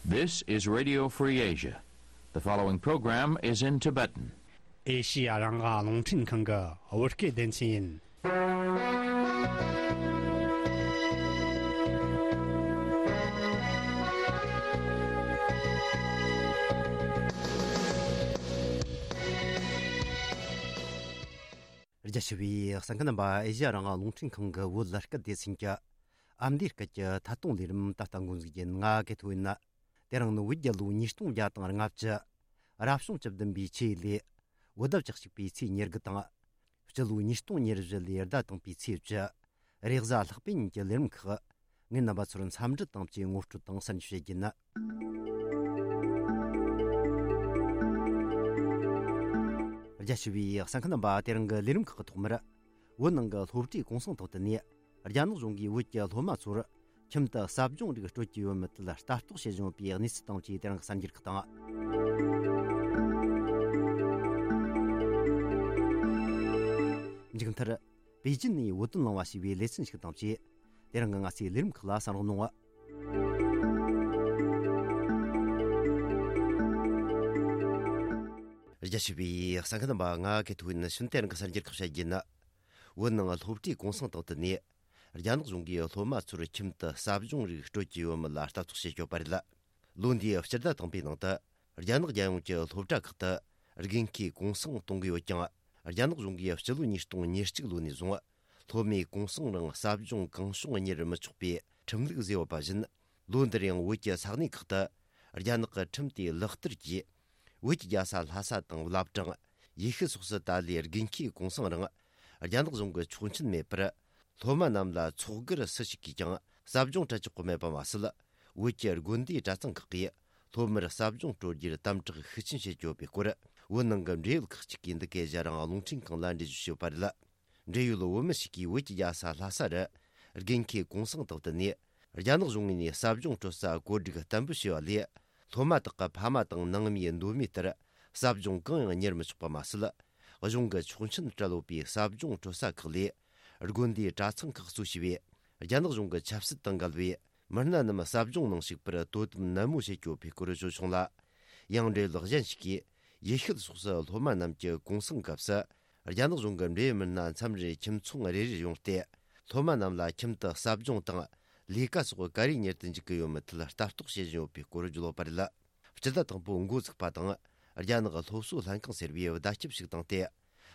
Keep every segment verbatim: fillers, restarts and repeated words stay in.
This is Radio Free Asia. The following program is in Tibetan. ཨེ་ཤི་ཡ་རང་དབང་རླུང་འཕྲིན་ཁང་གི་བོད་སྐད་སྡེ་ཚན་ཡིན། རྒྱ་ཆེ་བའི་གསན་མཁན་རྣམ་པ། ཨེ་ཤི་ཡ་རང་དབང་རླུང་འཕྲིན་ཁང་གི་བོད་སྐད་སྡེ་ཚན་གྱི་ཨ་མདོའི་སྐད་ཀྱི་ཐད་གཏོང་ལས་རིམ་ད་ལྟ་འགོ་འཛུགས་རྒྱུ་ཡིན། ང་གི་ཐོ་ཡིན་ན། དེ་རིང་ནི་བོད་རྒྱལ་ལོ་ཉིས་སྟོང་བརྒྱ་དང་ལྔ་བཅུ། རབ་བྱུང་བཅུ་བདུན་པའི་ཆུ་ཡོས་ལོའི་བོད་ཟླ་བཅུ་གཅིག་པའི་ཚེས་ཉེར་དགུ་དང་། སྤྱི་ལོ་ཉིས་སྟོང་ཉེར་བཞི་ལོའི་ཟླ་དང་པོའི་ཚེས་བཅུ། རེས་གཟའ་ལྷག་པའི་ཉིན་གྱི་ལས་རིམ་ཁག་ངས་རྣམ་པ་ཚོར་འཚམས་འདྲི་དང་བཅས་ངོ་སྤྲོད་དང་གསར་འགྱུར་བཤད་རྒྱུ་ཡིན། རྒྱ་ཆེ་བའི་གསན་མཁན་རྣམ་པ། དེ་རིང་གི་ལས་རིམ་ཁག་གི་ཐོག་མར། བོད་ནང་གི་སློབ་གྲྭའི་གུང་སེང་ཐོག་ཏུ་ནས། རྒྱ་ནག་གཞུང་གིས་བོད་ཀྱི་སློབ་མ་ཚོར་ཁྱིམ་དུ་ཟབ་སྦྱོང་རིགས་སྤྲོད་ཀྱི་ཡོད་མེད་ཐད་ལ་ལྟ་རྟོག་བྱེད་བཞིན་ཡོད་པའི་གནས་ཚུལ་དང་བཅས་དེ་རིང་གི་གསར་འགྱུར་ཁག་དང་། མཇུག་མཐར། པེ་ཅིན་ནས་བོད་དོན་གླེང་བ་ཞེས་པའི་ལེ་ཚན་ཞིག་དང་བཅས། དེ་རིང་གི་ང་ཚོའི་ལས་རིམ་ཁག་ལ་གསན་རོགས་གནང་། རྒྱ་ཆེ་བའི་གསན་མཁན་རྣམ་པ། ང་གི་ཐོ་ཡིན་ན་ཤུན་ཏན་གྱི་གསར་འགྱུར་ཁག་བཤད་རྒྱུ་ཡིན། བོད་ནང་སློབ་གྲྭའི་གུང་སེང་སྟེང་དུ་ནས། རྒྱ་ནག་གཞུང་གིས་སློབ་མ་ཚོར་ཁྱིམ་དུ་ཟབ་སྦྱོང་རིགས་སྤྲོད་ཀྱི་ཡོད་མེད་ལ་ལྟ་རྟོག་བྱེད་ཀྱི་ཡོད་པ་རེད། ལོ་འདིའི་སྤྱི་ཟླ་དང་པོའི་ནང་དུ། རྒྱ་ནག་རྒྱལ་ཡོངས་ཀྱི་སློབ་གྲྭ་ཁག་ཏུ་དགུན་ཁའི་གུང་སེང་གཏོང་གི་ཡོད་ཀྱང་། རྒྱ་ནག་གཞུང་གིས་སྤྱི་ལོ་ཉིས་སྟོང་ཉེར་གཅིག་ལོ་ནས་བཟུང་། སློབ་མའི་གུང་སེང་རིང་ཟབ་སྦྱོང་གང་བྱུང་གཉེར་མི་ཆོག་པའི་ཁྲིམས་ལུགས་བཟོས་ཡོད་པ་བཞིན། ལོ་འདིར་ཡང་བོད་ཀྱི་ས་གནས་ཁག་ཏུ། རྒྱ་ནག་གི་ཁྲིམས་དེ་ལག་བསྟར་གྱིས། བོད་ཀྱི་རྒྱལ་ས་ལྷ་ས་དང་བླ་བྲང་། ཡེ་ཤུ་སོགས་སུ་ད་ལོའི་དགུན་ཁའི་གུང་སེང་རིང་། རྒྱ་ནག་གཞུང་གི་ཆོག་མཆན་མེད་པར། སློབ་མ་རྣམས་ལ་ཚོགས་སྒེར་སུ་ཞིག་གིས་ཀྱང་ཟབ་སྦྱོང་སྤྲད་ཆོག་གི་མེད་པ་མ་ཟད། བོད་ཀྱི་དགོན་སྡེའི་གྲྭ་ཚང་ཁག་གིས་སློབ་མར་ཟབ་སྦྱོང་སྤྲོད་རྒྱུར་དམ་དྲག་ཤུགས་ཆེན་བྱེད་ཀྱི་ཡོད་པའི་སྐོར། བོད་ནང་གི་འབྲེལ་ཡོད་ཁག་ཅིག་གིས་འདི་གའི་ཨེ་ཤ་ཡ་རང་དབང་རླུང་འཕྲིན་ཁང་ལ་འགྲེལ་བརྗོད་ཞུས་པ་རེད། འབྲེལ་ཡོད་བོད་མི་ཞིག་གིས་བོད་ཀྱི་རྒྱལ་ས་ལྷ་ས་རུ། དགུན་ཁའི་གུང་སེང་དང་བསྟུན་ནས། རྒྱ་ནག་གཞུང་ངོས་ནས་ཟབ་སྦྱོང་སྤྲོད་ས་བཀོད་སྒྲིག་བརྟན་པོ་བྱས་པ་ལས། སློབ་མ་དག་གི་ཕ་མ་དང་ནང་མིའི་འདོད་མོས་ལྟར། ཟབ་སྦྱོང་གང་ཡང་གཉེར་མི་ཆོག་པ་མ་ཟད། གཞུང་གི་ཆོག་མཆན་སྤྲད་ཡོད་པའི་ཟབ་སྦྱོང་སྤྲོད་ས་ཁག་ལས། དགོན་སྡེའི་གྲྭ་ཚང་ཁག་གཙོ་བྱས་པའི། རྒྱ་ནག་གཞུང་གི་ཆབ་སྲིད་དང་འགལ་བའི། མི་སྣ་རྣམས་ཟབ་སྦྱོང་ནང་ཞུགས་པར་དོ་དམ་ནན་མོ་བྱེད་ཀྱི་ཡོད་པའི་སྐོར་བརྗོད་བྱུང་ལ། ཡང་འབྲེལ་ཡོད་གཞན་ཞིག་གིས། ཡེ་ཤུ་སོགས་སུ་སློབ་མ་རྣམས་ཀྱི་གུང་སེང་སྐབས་སུ། རྒྱ་ནག་གཞུང་གི་འབྲེལ་ཡོད་མི་སྣ་མཚམས་རེར་ཁྱིམ་ཚང་རེ་རེར་ཡོང་སྟེ། སློབ་མ་རྣམས་ལ་ཁྱིམ་དུ་ཟབ་སྦྱོང་དང་། ལས་ཀ་སོགས་ག་རེ་གཉེར་དུ་འཇུག་གི་ཡོད་མེད་ཐད་ལྟ་རྟོག་བྱེད་བཞིན་ཡོད་པའི་སྐོར་བརྗོད་ཡོད་པ་རེད། སྤྱི་ཟླ་དང་པོ་འགོ་ཚུགས་པ་དང་། རྒྱ་ནག་སློབ་གསོ་ལྷན་ཁང་ཟེར་བས་བརྡ་ཁྱབ་ཞིག་བཏང་སྟེ།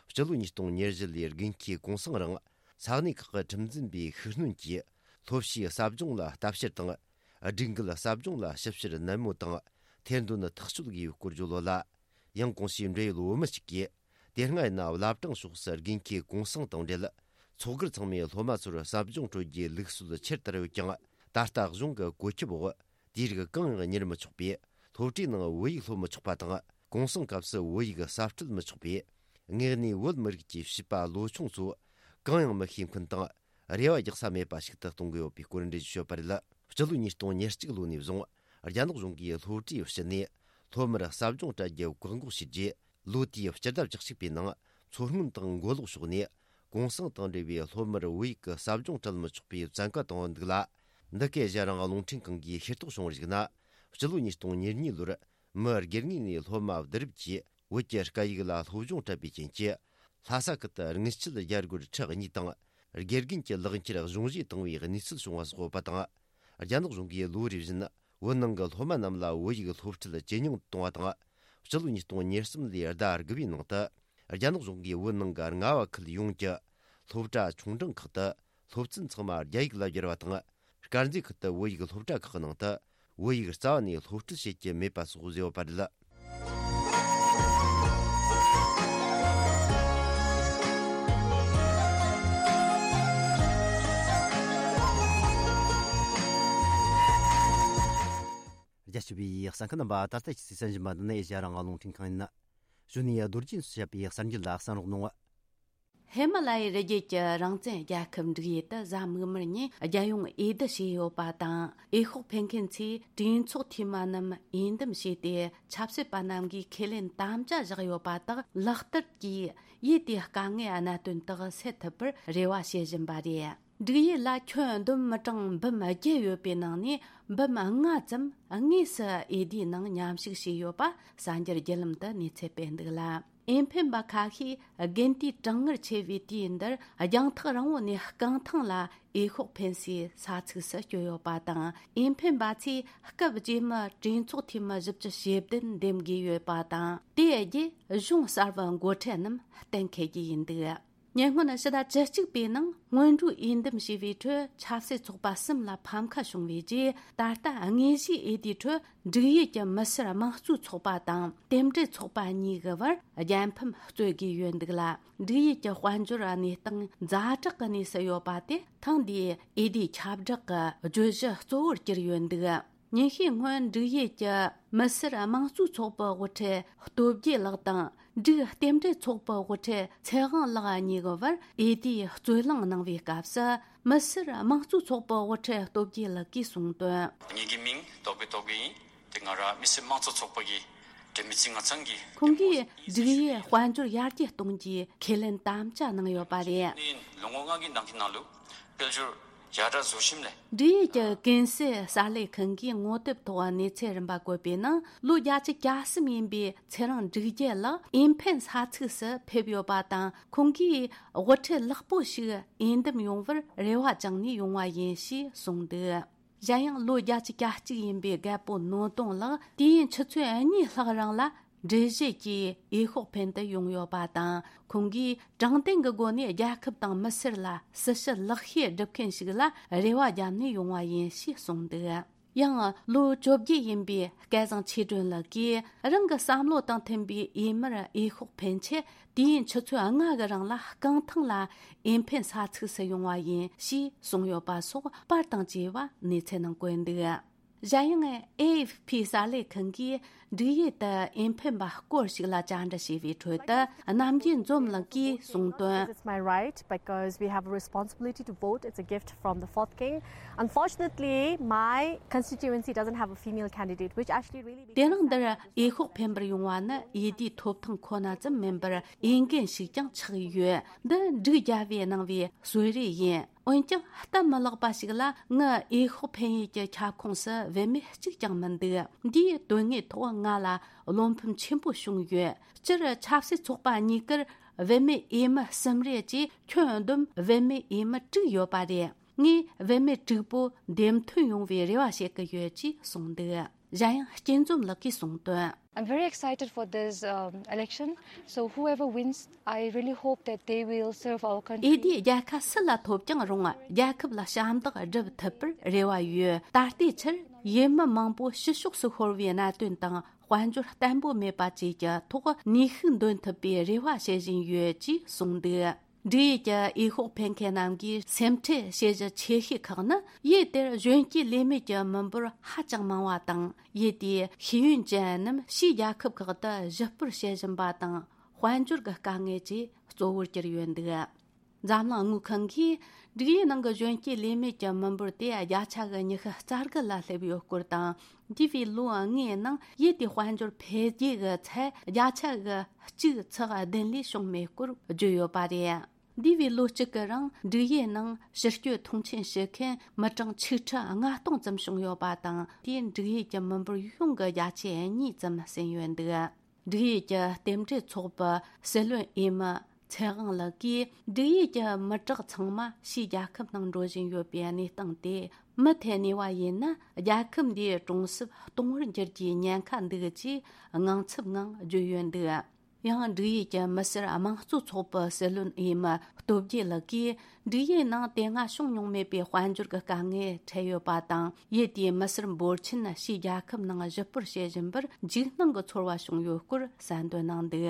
སྤྱི་ལོ་ཉིས་སྟོང་ཉེར་བཞི་ལོའི་དགུན་ཁའི་གུང་སེང་རིང་། ས་གནས་ཁག་གི་ཁྲིམས་འཛིན་པས་ཤུགས་སྣོན་གྱིས། སློབ་ཕྱིའི་ཟབ་སྦྱོང་ལ་ལྟ་བཤེར་དང་། སྒྲིག་འགལ་ཟབ་སྦྱོང་ལ་ཞིབ་བཤེར་ནན་མོ་དང་། ཐེར་འདོན་ཐག་གཅོད་དགོས་པའི་སྐོར་བརྗོད་ཡོད་ལ། ཡང་གོང་ཞུས་འབྲེལ་ཡོད་བོད་མི་གཅིག་གིས། དེ་སྔ་ཡིན་ན་བླ་བྲང་ཕྱོགས་སུ་དགུན་ཁའི་གུང་སེང་དང་འབྲེལ། ཚོགས་སྒེར་ཚང་མས་སློབ་མ་ཚོར་ཟབ་སྦྱོང་སྤྲོད་རྒྱུའི་ལུགས་སྲོལ་ཆེར་དར་ཡོད་ཀྱང་། ད་ལྟ་གཞུང་གི་བཀོད་ཁྱབ་འོག་དེའི་རིགས་གང་ཡང་གཉེར་མི་ཆོག་པས། སློབ་གྲྭའི་ནང་བོད་ཡིག་སློབ་མི་ཆོག་པ་དང་། གུང་སེང་སྐབས་སུ་བོད་ཡིག་གསབ་སྤྲོད་མི་ཆོག་པས། དངོས་གནས་བོད་མི་རིགས་ཀྱི་བྱིས་པ་ལོ་ཆུང་ཚོ་གང་ཡང་མི་ཤེས་མཁན་དང་། རེ་བ་རྒྱག་ས་མེད་པ་ཞིག་ཏུ་གཏོང་གི་ཡོད་པའི་སྐོར་འགྲེལ་བརྗོད་ཞུས་པ་རེད། སྤྱི་ལོ་ཉིས་སྟོང་ཉེར་གཅིག་ལོ་ནས་བཟུང་། རྒྱ་ནག་གཞུང་གིས་སློབ་གྲྭའི་ཕྱི་ནས་སློབ་མར་ཟབ་སྦྱོང་སྤྲད་རྒྱུ་བཀག་འགོག་བྱས་རྗེས། ལོ་དེའི་སྤྱི་ཟླ་བཅུ་གཅིག་པའི་ནང་། མཚོ་སྔོན་དང་མགོ་ལོག་ཕྱོགས་ནས། གུང་སེང་དང་འབྲེལ་བའི་སློབ་མར་བོད་ཡིག་གི་ཟབ་སྦྱོང་སྤྲད་མི་ཆོག་པའི་བཙན་བཀའ་བཏང་ཡོད་འདུག་ལ། འདི་གའི་ཨེ་ཤ་ཡ་རང་དབང་རླུང་འཕྲིན་ཁང་གིས་ཤེས་རྟོགས་བྱུང་བར་གཞིགས་ན། སྤྱི་ལོ་ཉིས་སྟོང་ཉེར་གཉིས་ལོར། མི་སྒེར་ངོས་ནས་སློབ་མ་བསྡུ་རུབ་ཀྱིས། བོད་ཀྱི་སྐད་ཡིག་ལ་སློབ་སྦྱོང་སྤྲད་པའི་རྐྱེན་གྱིས། ལྷ་ས་ཁུལ་དུ་དངུལ་ཆད་རྒྱ་སྒོར་ཁྲི་གཉིས་དང་། དགེ་རྒན་གྱི་ལག་འཁྱེར་གཞུང་བཞེས་བཏང་བའི་གནས་ཚུལ་བྱུང་བ་སོགས་ཡོད་པ་དང་། རྒྱ་ནག་གཞུང་གིས་ལོ་རེ་བཞིན། བོད་ནང་གི་སློབ་མ་རྣམས་ལ་བོད་ཡིག་སློབ་ཁྲིད་ཇེ་ཉུང་དུ་གཏོང་བ་དང་། སྤྱི་ལོ་ཉིས་སྟོང་ཉེར་གསུམ་ལོའི་ཟླ་དགུ་པའི་ནང་དུ། རྒྱ་ནག་གཞུང་གིས་བོད་ནང་གི་རྔ་བ་ཁུལ་ཡོངས་ཀྱི་སློབ་གྲྭ་ཆུང་འབྲིང་ཁག་ཏུ། སློབ་ཚན་ཚང་མ་རྒྱ་ཡིག་ལ་བསྒྱུར་བ་དང་། དཀར་མཛེས་ཁུལ་དུ་བོད་ཡིག་སློབ་གྲྭ་ཁག་གི་ནང་དུ། བོད་ཡིག་རྩ་བ་ནས་སློབ་ཁྲིད་བྱེད་ཀྱི་མེད་པ་སོགས་བཟོས་ཡོད་པ་རེད། རྒྱ་ཆེ་བའི་གསན་མཁན་རྣམ་པ། ད་ལྟ་ཁྱེད་ཚོས་གསན་བཞིན་པ་འདི་ནི་ཨེ་ཤ་ཡ་རང་དབང་རླུང་འཕྲིན་ཁང་ཡིན། གཞུག་ནས་རྡོ་རྗེ་སུ་བཤད་པའི་གསར་འགྱུར་ལ་གསན་རོགས་གནང་། ཧི་མ་ལ་ཡའི་རི་རྒྱུད་ཀྱི་རང་བཙན་རྒྱལ་ཁབ་འབྲུག་ཡུལ་དུ་གཟའ་མིག་དམར་ཉིན་རྒྱལ་ཡོངས་འོས་བསྡུ་བྱས་ཡོད་པ་དང་། འོས་ཤོག་འཕེན་མཁན་ཚོས་གྲོས་ཚོགས་འཐུས་མི་རྣམས་འོས་འདེམས་བྱས་ཏེ། ཆབ་སྲིད་པ་རྣམས་ཀྱིས་ཁས་ལེན་དམ་བཅའ་བཞག་ཡོད་པ་དག་ལག་བསྟར་གྱིས། ཡུལ་དེའི་དཀའ་ངལ་གནད་དོན་དག་སེལ་ཐུབ་པར་རེ་བ་བྱེད་བཞིན་པ་རེད། འབྲུག་ཡུལ་ལ་ཁྱོན་བསྡོམས་མི་གྲངས་འབུམ་བརྒྱད་ཡོད་པའི་ནང་ནས་འབུམ་ལྔ་ཙམ་དངོས་སུ་འོས་བསྡུའི་ནང་མཉམ་ཞུགས་བྱས་ཡོད་པ་གསར་འགྱུར་བརྒྱུད་ལམ་དུ་གནས་ཚུལ་སྤེལ་འདུག་ལ། འོས་འཕེན་པ་ཁ་ཤས་དགུན་དུས་གྲང་ངར་ཆེ་བའི་དུས་འདིར་རྒྱང་ཐག་རིང་བོ་ནས་རྐང་ཐང་ལ་འོས་ཤོག་འཕེན་སའི་ས་ཚིགས་སུ་བསྐྱོད་ཡོད་པ་དང་། འོས་འཕེན་པ་ཚོས་སྐབས་རྗེས་མའི་གྲོས་ཚོགས་འཐུས་མི་བཞི་བཅུ་ཞེ་བདུན་འདེམས་དགོས་ཡོད་པ་དང་། དེ་རྗེས་གཞུང་གསར་པའི་འགོ་ཁྲིད་རྣམས་གཏན་འཁེལ་རྒྱུ་ཡིན་འདུག་ཉེ་སྔོན་ཕྱི་ཟླ་བཅུ་གཅིག་པའི་ནང་སྔོན་འགྲོའི་འོས་འདེམས་བྱས་པའི་ཁྲོད་ཆབ་སྲིད་ཚོགས་པ་གསུམ་ལ་ཕམ་ཁ་བྱུང་བའི་རྗེས། ད་ལྟ་དངོས་གཞིའི་འོས་བསྡུའི་ཁྲོད་འབྲུག་ཡུལ་གྱི་མི་སེར་དམངས་གཙོའི་ཚོགས་པ་དང་རྟེན་འབྲེལ་ཚོགས་པ་གཉིས་ཀྱི་བར་རྒྱལ་ཕམ་རྩོད་དགོས་ཡོད་འདུག་ལ། འབྲུག་ཡུལ་གྱི་དཔལ་འབྱོར་གནས་སྟངས་ཛ་དྲག་གི་གནས་སུ་ཡོད་པ་དེ་ཐེངས་འདིའི་འོས་བསྡུའི་ཁྱབ་བསྒྲགས་ཀྱི་བརྗོད་གཞི་གཙོ་བོར་གྱུར་ཡོད་འདུག་ཉིན་ཤས་སྔོན་འབྲུག་ཡུལ་གྱི་མི་སེར་དམངས་གཙོའི་ཚོགས་པའི་དབུ་ཁྲིད་སྟོབས་རྒྱས་ལགས་དང་འབྲུག་རྟེན་འབྲེལ་ཚོགས་པའི་དབུ་ཁྲིད་ཚེ་དབང་ལགས་གཉིས་ཀྱི་བར་འོས་བསྡུའི་རྩོད་གླེང་གནང་བའི་སྐབས་སུ། མི་སེར་དམངས་གཙོའི་ཚོགས་པའི་དབུ་ཁྲིད་སྟོབས་རྒྱས་ལགས་ཀྱིས་གསུངས་དོན། ངེད་ཀྱི་མིང་སྟོབས་རྒྱས་སྟོབས་རྒྱས་ཡིན། དེ་ང་རང་མི་སེར་དམངས་གཙོ་ཚོགས་པ་གི་འབྲེལ་མི་ཚེ་ང་ཚང་གི་ཁོང་གིས་འབྲུག་ཡུལ་དཔལ་འབྱོར་ཡར་རྒྱས་གཏོང་རྒྱུའི་ཁས་ལེན་དམ་བཅའ་གནང་ཡོད་པ་རེད། ནི་ལོ་ངོ་ལྔ་གི་ནང་གི་ནང་ལུགས་དཔལ་འབྱོར་ཡར་དྲག་བཟོ་ཞིམ་ལས། འབྲུག་ཡུལ་གྱི་ཀུན་གསལ་གསར་ལས་ཁང་གིས་ངོ་དེབ་ཐོག་གནས་ཚུལ་རིམ་པ་བཀོད་པའི་ནང་། ལོ་བརྒྱད་ཅུ་གྱ་གསུམ་ཡིན་པའི་ཚེ་རིང་འབྲུག་རྒྱལ་ལགས་འོས་འཕེན་ས་ཚིགས་སུ་ཕེབས་ཡོད་པ་དང་། ཁོང་གིས་དབུ་ཁྲིད་ལེགས་པོ་ཞིག་འོས་འདེམས་ཡོང་བར་རེ་བ་བཅངས་ནས་ཡོང་བ་ཡིན་ཞེས་གསུངས་འདུག་གཞན་ཡང་ལོ་བརྒྱད་ཅུ་གྱ་གཅིག་ཡིན་པའི་རྒད་པོ་ནོར་གདོང་ལགས་དུས་ཡུན་ཆུ་ཚོད་གཉིས་ལྷག་རིང་ལ་འགྲུལ་བཞུད་ཀྱིས་འོས་ཤོག་འཕེན་དུ་ཡོང་ཡོད་པ་དང་། ཁོང་གིས་དྲང་བདེན་གྱི་སྒོ་ནས་རྒྱལ་ཁབ་དང་མི་སེར་ལ་སྲི་ཞུ་ལེགས་ཤོས་སྒྲུབ་མཁན་ཞིག་ལ་རེ་བ་བརྒྱབ་ནས་ཡོང་བ་ཡིན་ཞེས་གསུངས་འདུག་ཡང་ལོ་བཅོ་བརྒྱད་ཡིན་པའི་སྐལ་བཟང་ཆོས་སྒྲོན་ལགས་ཀྱིས་རང་གི་བསམ་བློ་དང་མཐུན་པའི་འོས་མིར་འོས་ཤོག་འཕེན་ཆེད། དུས་ཡུན་ཆུ་ཚོད་ལྔ་གི་རིང་ལ་རྐང་ཐང་ལ་འོས་འཕེན་ས་ཚིགས་སུ་ཡོང་བ་ཡིན་ཞེས་གསུངས་ཡོད་པ་སོགས་པར་དང་བཅས་པ་གནས་ཚུལ་ནང་བཀོད་འདུག་གཞན་ཡང་ཨེ་ཨེཕ་ཕི་གསར་ལས་ཁང་གིས་འབྲུག་ཡུལ་དུ་འོས་འཕེན་པ་སྐོར་ཞིག་ལ་བཅར་འདྲི་བྱས་པའི་ཁྲོད་དུ། རྣམ་རྒྱལ་འཛོམས་ལགས་ཀྱིས་གསུངས་དོན། It's my right because we have a responsibility to vote. It's a gift from the fourth king. Unfortunately, my constituency doesn't have a female candidate, which actually really དེ་རིང་འདིར་འོས་ཤོག་འཕེན་པར་ཡོང་བ་ནི་འོས་བསྡུའི་ཐོབ་ཐང་ཁོ་ན་ཙམ་མིན་པར། འོས་འགན་ཞིག་ཀྱང་ཆགས་ཡོད། འདི་འབྲུག་རྒྱལ་པོས་གནང་བའི་གསོལ་རས་ཡིན། འོན་ཀྱང་སྟབས་མི་ལེགས་པ་ཞིག་ལ། ངའི་འོས་ཤོག་འཕེན་ཡུལ་གྱི་ཁྱབ་ཁོངས་སུ་བུད་མེད་གཅིག་ཀྱང་མི་འདུག་འདིའི་དོན་དངོས་ཐོག་ང་ལ་བློ་ཕམ་ཆེན་པོ་བྱུང་ཡོད། སྤྱིར་ཆབ་སྲིད་ཚོགས་པ་གཉིས་ཀར་བུད་མེད་འོས་མི་གསུམ་རེ་བཅས་ཁྱོན་བསྡོམས་བུད་མེད་འོས་མི་དྲུག་ཡོད་པ་རེད། ངས་བུད་མེད་དྲུག་པོ་འདེམས་ཐོན་ཡོང་བའི་རེ་བ་བྱེད་ཀྱི་ཡོད་ཅེས་གསུངས་འདུག་གཞན་ཡང་སྐྱིད་འཛོམས་ལགས་ཀྱིས་གསུངས་དོན། I'm very excited for this um, election. So whoever wins, I really hope that they will serve our country. འོས་བསྡུའི་རྒྱལ་ཁ་སུ་ལ་ཐོབ་ཀྱང་རུང་། རྒྱལ་ཁབ་ལ་ཞབས་འདེགས་སྒྲུབ་ཐུབ་པར་རེ་བ་ཡོད། ད་ལྟའི་ཆར་འོས་མི་མང་པོ་ཕྱི་ཕྱོགས་སུ་ཤོར་བའི་གནད་དོན་དང་། དཔལ་འབྱོར་བརྟན་པོ་མེད་པ་བཅས་ཀྱི་ཐོག་ནུས་ཤུགས་འདོན་ཐུབ་པའི་རེ་བ་བྱེད་བཞིན་ཡོད་ཅེས་གསུངས་འདུག་འབྲུག་ཡུལ་གྱི་འོས་ཤོག་འཕེན་མཁན་རྣམས་ཀྱི་སེམས་ཁྲལ་བྱེད་གཞི་ཆེ་ཤོས་ཁག་ནི། ཡུལ་དེར་གཞོན་སྐྱེས་ལས་མེད་ཀྱི་མི་འབོར་ཧ་ཅང་མང་བ་དང་། ཡུལ་དེའི་ཤེས་ཡོན་ཅན་རྣམས་ཕྱིའི་རྒྱལ་ཁབ་ཁག་ཏུ་གཞིས་སྤོར་བྱེད་བཞིན་པ་དང་། དཔལ་འབྱོར་གྱི་དཀའ་ངལ་བཅས་གཙོ་བོར་གྱུར་ཡོད་འདུག་འཛམ་གླིང་དངུལ་ཁང་གིས་འབྲུག་ཡུལ་ནང་གི་གཞོན་སྐྱེས་ལས་མེད་ཀྱི་མི་འབོར་དེ་བརྒྱ་ཆ་གི་ཉི་ཤུ་རྩ་དགུ་ལ་སླེབས་ཡོད་སྐོར་དང་། འདས་པའི་ལོ་ལྔའི་ནང་ཡུལ་དེའི་དཔལ་འབྱོར་འཕེལ་རྒྱས་ཀྱི་ཚད་བརྒྱ་ཆ་གི་གཅིག་ཚེག་བདུན་ལས་བྱུང་མེད་སྐོར་བརྗོད་ཡོད་པ་རེད། འདས་པའི་ལོ་གཅིག་གི་རིང་འབྲུག་ཡུལ་ནང་ཕྱི་སྐྱོད་མཐོང་ཆེན་བྱེད་མཁན་མི་གྲངས་ཆིག་ཁྲི་ལྔ་སྟོང་ཙམ་བྱུང་ཡོད་པ་དང་། དེས་འབྲུག་ཡུལ་གྱི་མི་འབོར་ཡོངས་ཀྱི་བརྒྱ་ཆའི་གཉིས་ཙམ་ཟིན་ཡོད་འདུག་འབྲུག་ཡུལ་གྱི་རྟེན་འབྲེལ་ཚོགས་པའི་སྲིད་བློན་འོས་མི་ཚེ་དབང་ལགས་ཀྱིས། འབྲུག་ཡུལ་གྱི་མི་དྲག་ཚང་མ་ཕྱིའི་རྒྱལ་ཁབ་ནང་འགྲོ་བཞིན་ཡོད་པའི་གནས་སྟངས་དེ་མུ་མཐུད་གནས་པ་ཡིན་ན། རྒྱལ་ཁབ་འདིའི་གྲོང་གསེབ་སྟོང་བར་འགྱུར་རྒྱུའི་ཉེན་ཁ་འདུག་ཅེས་དངངས་འཚབ་ངང་བརྗོད་ཡོད་འདུག་ཡང་འབྲུག་ཡུལ་གྱི་མི་སེར་དམངས་གཙོ་ཚོགས་པའི་སྲིད་བློན་འོས་མི་སྟོབས་རྒྱས་ལགས་ཀྱིས། འབྲུག་ཡུལ་ནང་དེ་སྔ་བྱུང་མྱོང་མེད་པའི་དཔལ་འབྱོར་གྱི་དཀའ་ངལ་འཕྲད་ཡོད་པ་དང་། ཡུལ་དེའི་མི་སེར་འབོར་ཆེན་ཕྱིའི་རྒྱལ་ཁབ་ནང་གཞིས་སྤོར་བྱེད་བཞིན་པར་འཇིགས་སྣང་གི་ཚོར་བ་བྱུང་ཡོད་སྐོར་གསལ་འདོན་གནང་འདུག་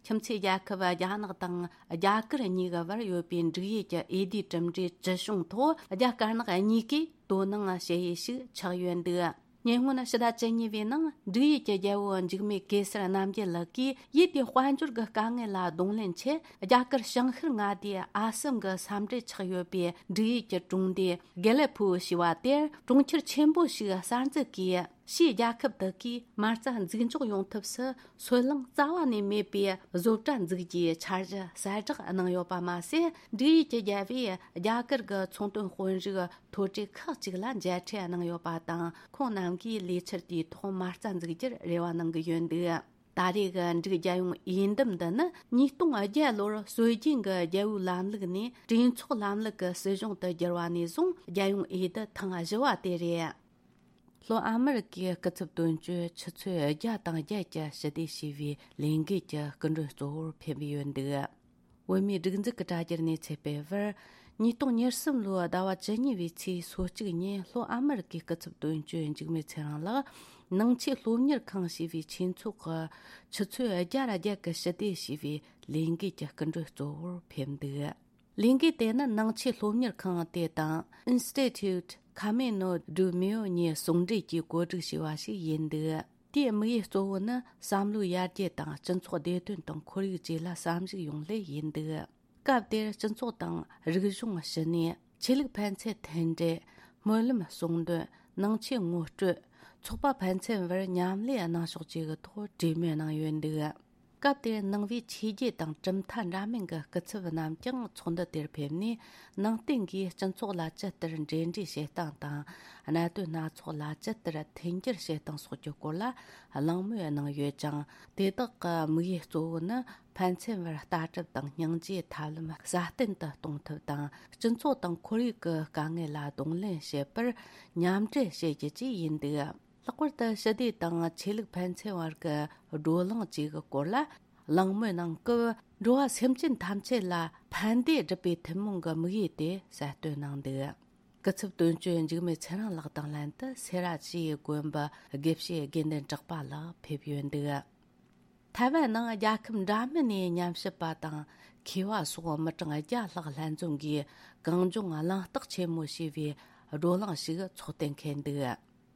ཁྱིམ་མཚེས་རྒྱལ་ཁབ་རྒྱ་ནག་དང་རྒྱ་གར་གཉིས་ཀྱི་བར་ཡོད་པའི་འབྲུག་ཡུལ་གྱི་འོས་བསྡུའི་གྲུབ་འབྲས་ཇི་བྱུང་ཐོག་རྒྱ་དཀར་ནག་གཉིས་ཀས་དོ་སྣང་བྱེད་ཡུལ་ཞིག་ཆགས་ཡོད་འདུག་ཉེ་སྔོན་ཕྱི་ཟླ་བཅུ་གཉིས་པའི་ནང་འབྲུག་ཡུལ་གྱི་རྒྱལ་པོ་འཇིགས་མེད་གེ་སར་རྣམ་རྒྱལ་ལགས་ཀྱིས་ཡུལ་དེའི་དཔལ་འབྱོར་གྱི་དཀའ་ངལ་ལ་གདོང་ལེན་ཆེད། རྒྱ་གར་བྱང་ཤར་མངའ་སྡེ་ཨ་སམ་གྱི་ས་འབྲེལ་ཆགས་ཡོད་པའི་འབྲུག་ཡུལ་གྱི་གྲོང་སྡེ་དགེ་ལེགས་ཕུའུ་ཞེས་པ་དེར་གྲོང་ཁྱེར་ཆེན་པོ་ཞིག་གསར་འཛུགས་ཀྱིས། ཕྱིའི་རྒྱལ་ཁབ་དག་གིས་མ་རྩ་འཛུགས་འཇོག་ཡོང་ཐབས་སུ་སོལ་རླངས་རྩ་བ་ནས་མེད་པའི་བཟོ་གྲྭ་འཛུགས་རྒྱུའི་འཆར་གཞི་གསལ་བསྒྲགས་གནང་ཡོད་པ་མ་ཟད། འབྲུག་ཡུལ་གྱི་རྒྱལ་པོས་རྒྱ་གར་གྱི་ཚོང་དོན་དཔོན་རིགས་མཐོ་གྲས་ཁག་ཅིག་ལ་མཇལ་འཕྲད་གནང་ཡོད་པ་དང་། ཁོང་རྣམས་ཀྱིས་ལས་འཆར་དེའི་ཐོག་མ་རྩ་འཛུགས་རྒྱུར་རེ་བ་གནང་གི་ཡོད་འདུག་ད་རེས་ཀྱི་འབྲུག་རྒྱལ་ཡོངས་འོས་འདེམས་འདི་ནི་ཉིས་སྟོང་བརྒྱད་ལོར་སྲོལ་རྒྱུན་གྱི་རྒྱལ་པོའི་ལམ་ལུགས་ནས་གྲོས་ཚོགས་ལམ་ལུགས་ཀྱི་སྲིད་གཞུང་དུ་བསྒྱུར་བ་ནས་བཟུང་རྒྱལ་ཡོངས་འོས་བསྡུ་ཐེངས་བཞི་བ་དེ་རེད། ལྷོ་ཨ་མི་རི་ཀའི་སྐུ་ཚབ་དོན་གཅོད་ཆུ་ཚོད་བརྒྱ་དང་བརྒྱད་ཀྱི་ཞི་བདེ་ཞེས་པའི་ལས་འགུལ་གྱི་སྐུ་མགྲོན་གཙོ་བོར་ཕེབས་ཡོད་འདུག་བོད་མིའི་སྒྲིག་འཛུགས་ཀྱི་དྲ་རྒྱར་གནས་ཚུལ་སྤེལ་བར། ཉིས་སྟོང་ཉེར་གསུམ་ལོའི་ཟླ་བ་བཅུ་གཉིས་པའི་ཚེས་སོ་གཅིག་ཉིན་ལྷོ་ཨ་མི་རི་ཀའི་སྐུ་ཚབ་དོན་གཅོད་འཇིགས་མེད་ཚེ་རིང་ལགས་ནང་ཆོས་སློབ་གཉེར་ཁང་ཞེས་པའི་ཆོས་ཚོགས་ཀྱི་ཆུ་ཚོད་བརྒྱ་ར་བརྒྱད་ཀྱི་ཞི་བདེ་ཞེས་པའི་ལས་འགུལ་གྱི་སྐུ་མགྲོན་གཙོ་བོར་ཕེབས་འདུག་ལས་འགུལ་དེ་ནི་ནང་ཆོས་སློབ་གཉེར་ཁང་དེ་དང་Institute Camino de Mayo གཉིས་ཟུང་འབྲེལ་གྱིས་གོ་སྒྲིག་བྱས་པ་ཞིག་ཡིན་འདུག་དེའི་དམིགས་ཡུལ་གཙོ་བོ་ནི་བསམ་བློའི་ཡར་རྒྱས་དང་སྤྱི་ཚོགས་བདེ་དོན་དང་ཁོར་ཡུག་བཅས་ལ་བསམ་གཞིགས་ཡོང་སླད་ཡིན་འདུག་སྐབས་དེར་སྤྱི་ཚོགས་དང་རིག་གཞུང་ཞི་གནས། ཆོས་ལུགས་ཕན་ཚུན་མཐུན་འབྲེལ། སྨོན་ལམ་གསུང་འདོན། ནང་ཆོས་ངོ་སྤྲོད། ཚོགས་པ་ཕན་ཚུན་བར་མཉམ་ལས་གནང་ཕྱོགས་བཅས་ཀྱི་ཐོག་གྲོས་མོལ་གནང་ཡོད་འདུག་སྐབས་དེར་ནང་པའི་ཆོས་བརྒྱུད་དང་གྲུབ་མཐའ་འདྲ་མིན་གྱི་སྐུ་ཚབ་རྣམས་ཀྱང་ཚོགས་འདུ་དེར་ཕེབས་ནས། ནང་བསྟན་གྱིས་སྤྱི་ཚོགས་ལ་ཇི་ལྟར་འབྲེལ་འདྲིས་བྱེད་སྟངས་དང་། གནད་དོན་སྣ་ཚོགས་ལ་ཇི་ལྟར་མཐུན་འགྱུར་བྱེད་སྟངས་སོགས་ཀྱི་སྐོར་ལ་གླེང་མོལ་གནང་ཡོད་ཅིང་། དེ་དག་གི་དམིགས་ཡུལ་གཙོ་བོ་ནི། ཕན་ཚུན་བར་ལྟ་གྲུབ་དང་སྙིང་རྗེའི་ཐབས་ལམ་སྲ་བརྟན་དུ་གཏོང་ཐབས་དང་། སྤྱི་ཚོགས་དང་ཁོར་ཡུག་གི་དཀའ་ངལ་ལ་གདོང་ལེན་བྱེད་པར་མཉམ་འབྲེལ་བྱེད་རྒྱུ་བཅས་ཡིན་འདུག་ལྷག་པར་དུ་ཞི་བདེ་དང་ཆོས་ལུགས་ཕན་ཚུན་བར་གྱི་བགྲོ་གླེང་བཅས་ཀྱི་སྐོར་ལ་གླེང་མོལ་གནང་སྐབས། འགྲོ་བ་སེམས་ཅན་ཐམས་ཅད་ལ་ཕན་བདེ་སྒྲུབ་པའི་ཐུན་མོང་གི་དམིགས་ཡུལ་དེ་གསལ་སྟོན་གནང་འདུག་སྐུ་ཚབ་དོན་གཅོད་འཇིགས་མེད་ཚེ་རིང་ལགས་དང་ལྷན་དུ་སེ་ར་བྱེས་དགོན་པའི་དགེ་བཤེས་དགེ་འདུན་གྲགས་པ་ལགས་ཕེབས་ཡོད་འདུག་ཐའེ་ཝན་ནང་རྒྱལ་ཁབ་འདྲ་མིན་ནས་ཉམས་ཞིབ་པ་དང་མཁས་པ་སོགས་མི་གྲངས་བརྒྱ་ལྷག་ལྷན་འཛོམས་ཀྱིས་གངས་ལྗོངས་གླེང་སྟེགས་ཆེན་མོ་ཞེས་པའི་བགྲོ་གླེང་ཞིག་ཚོགས་གཏན་འཁེལ་འདུག་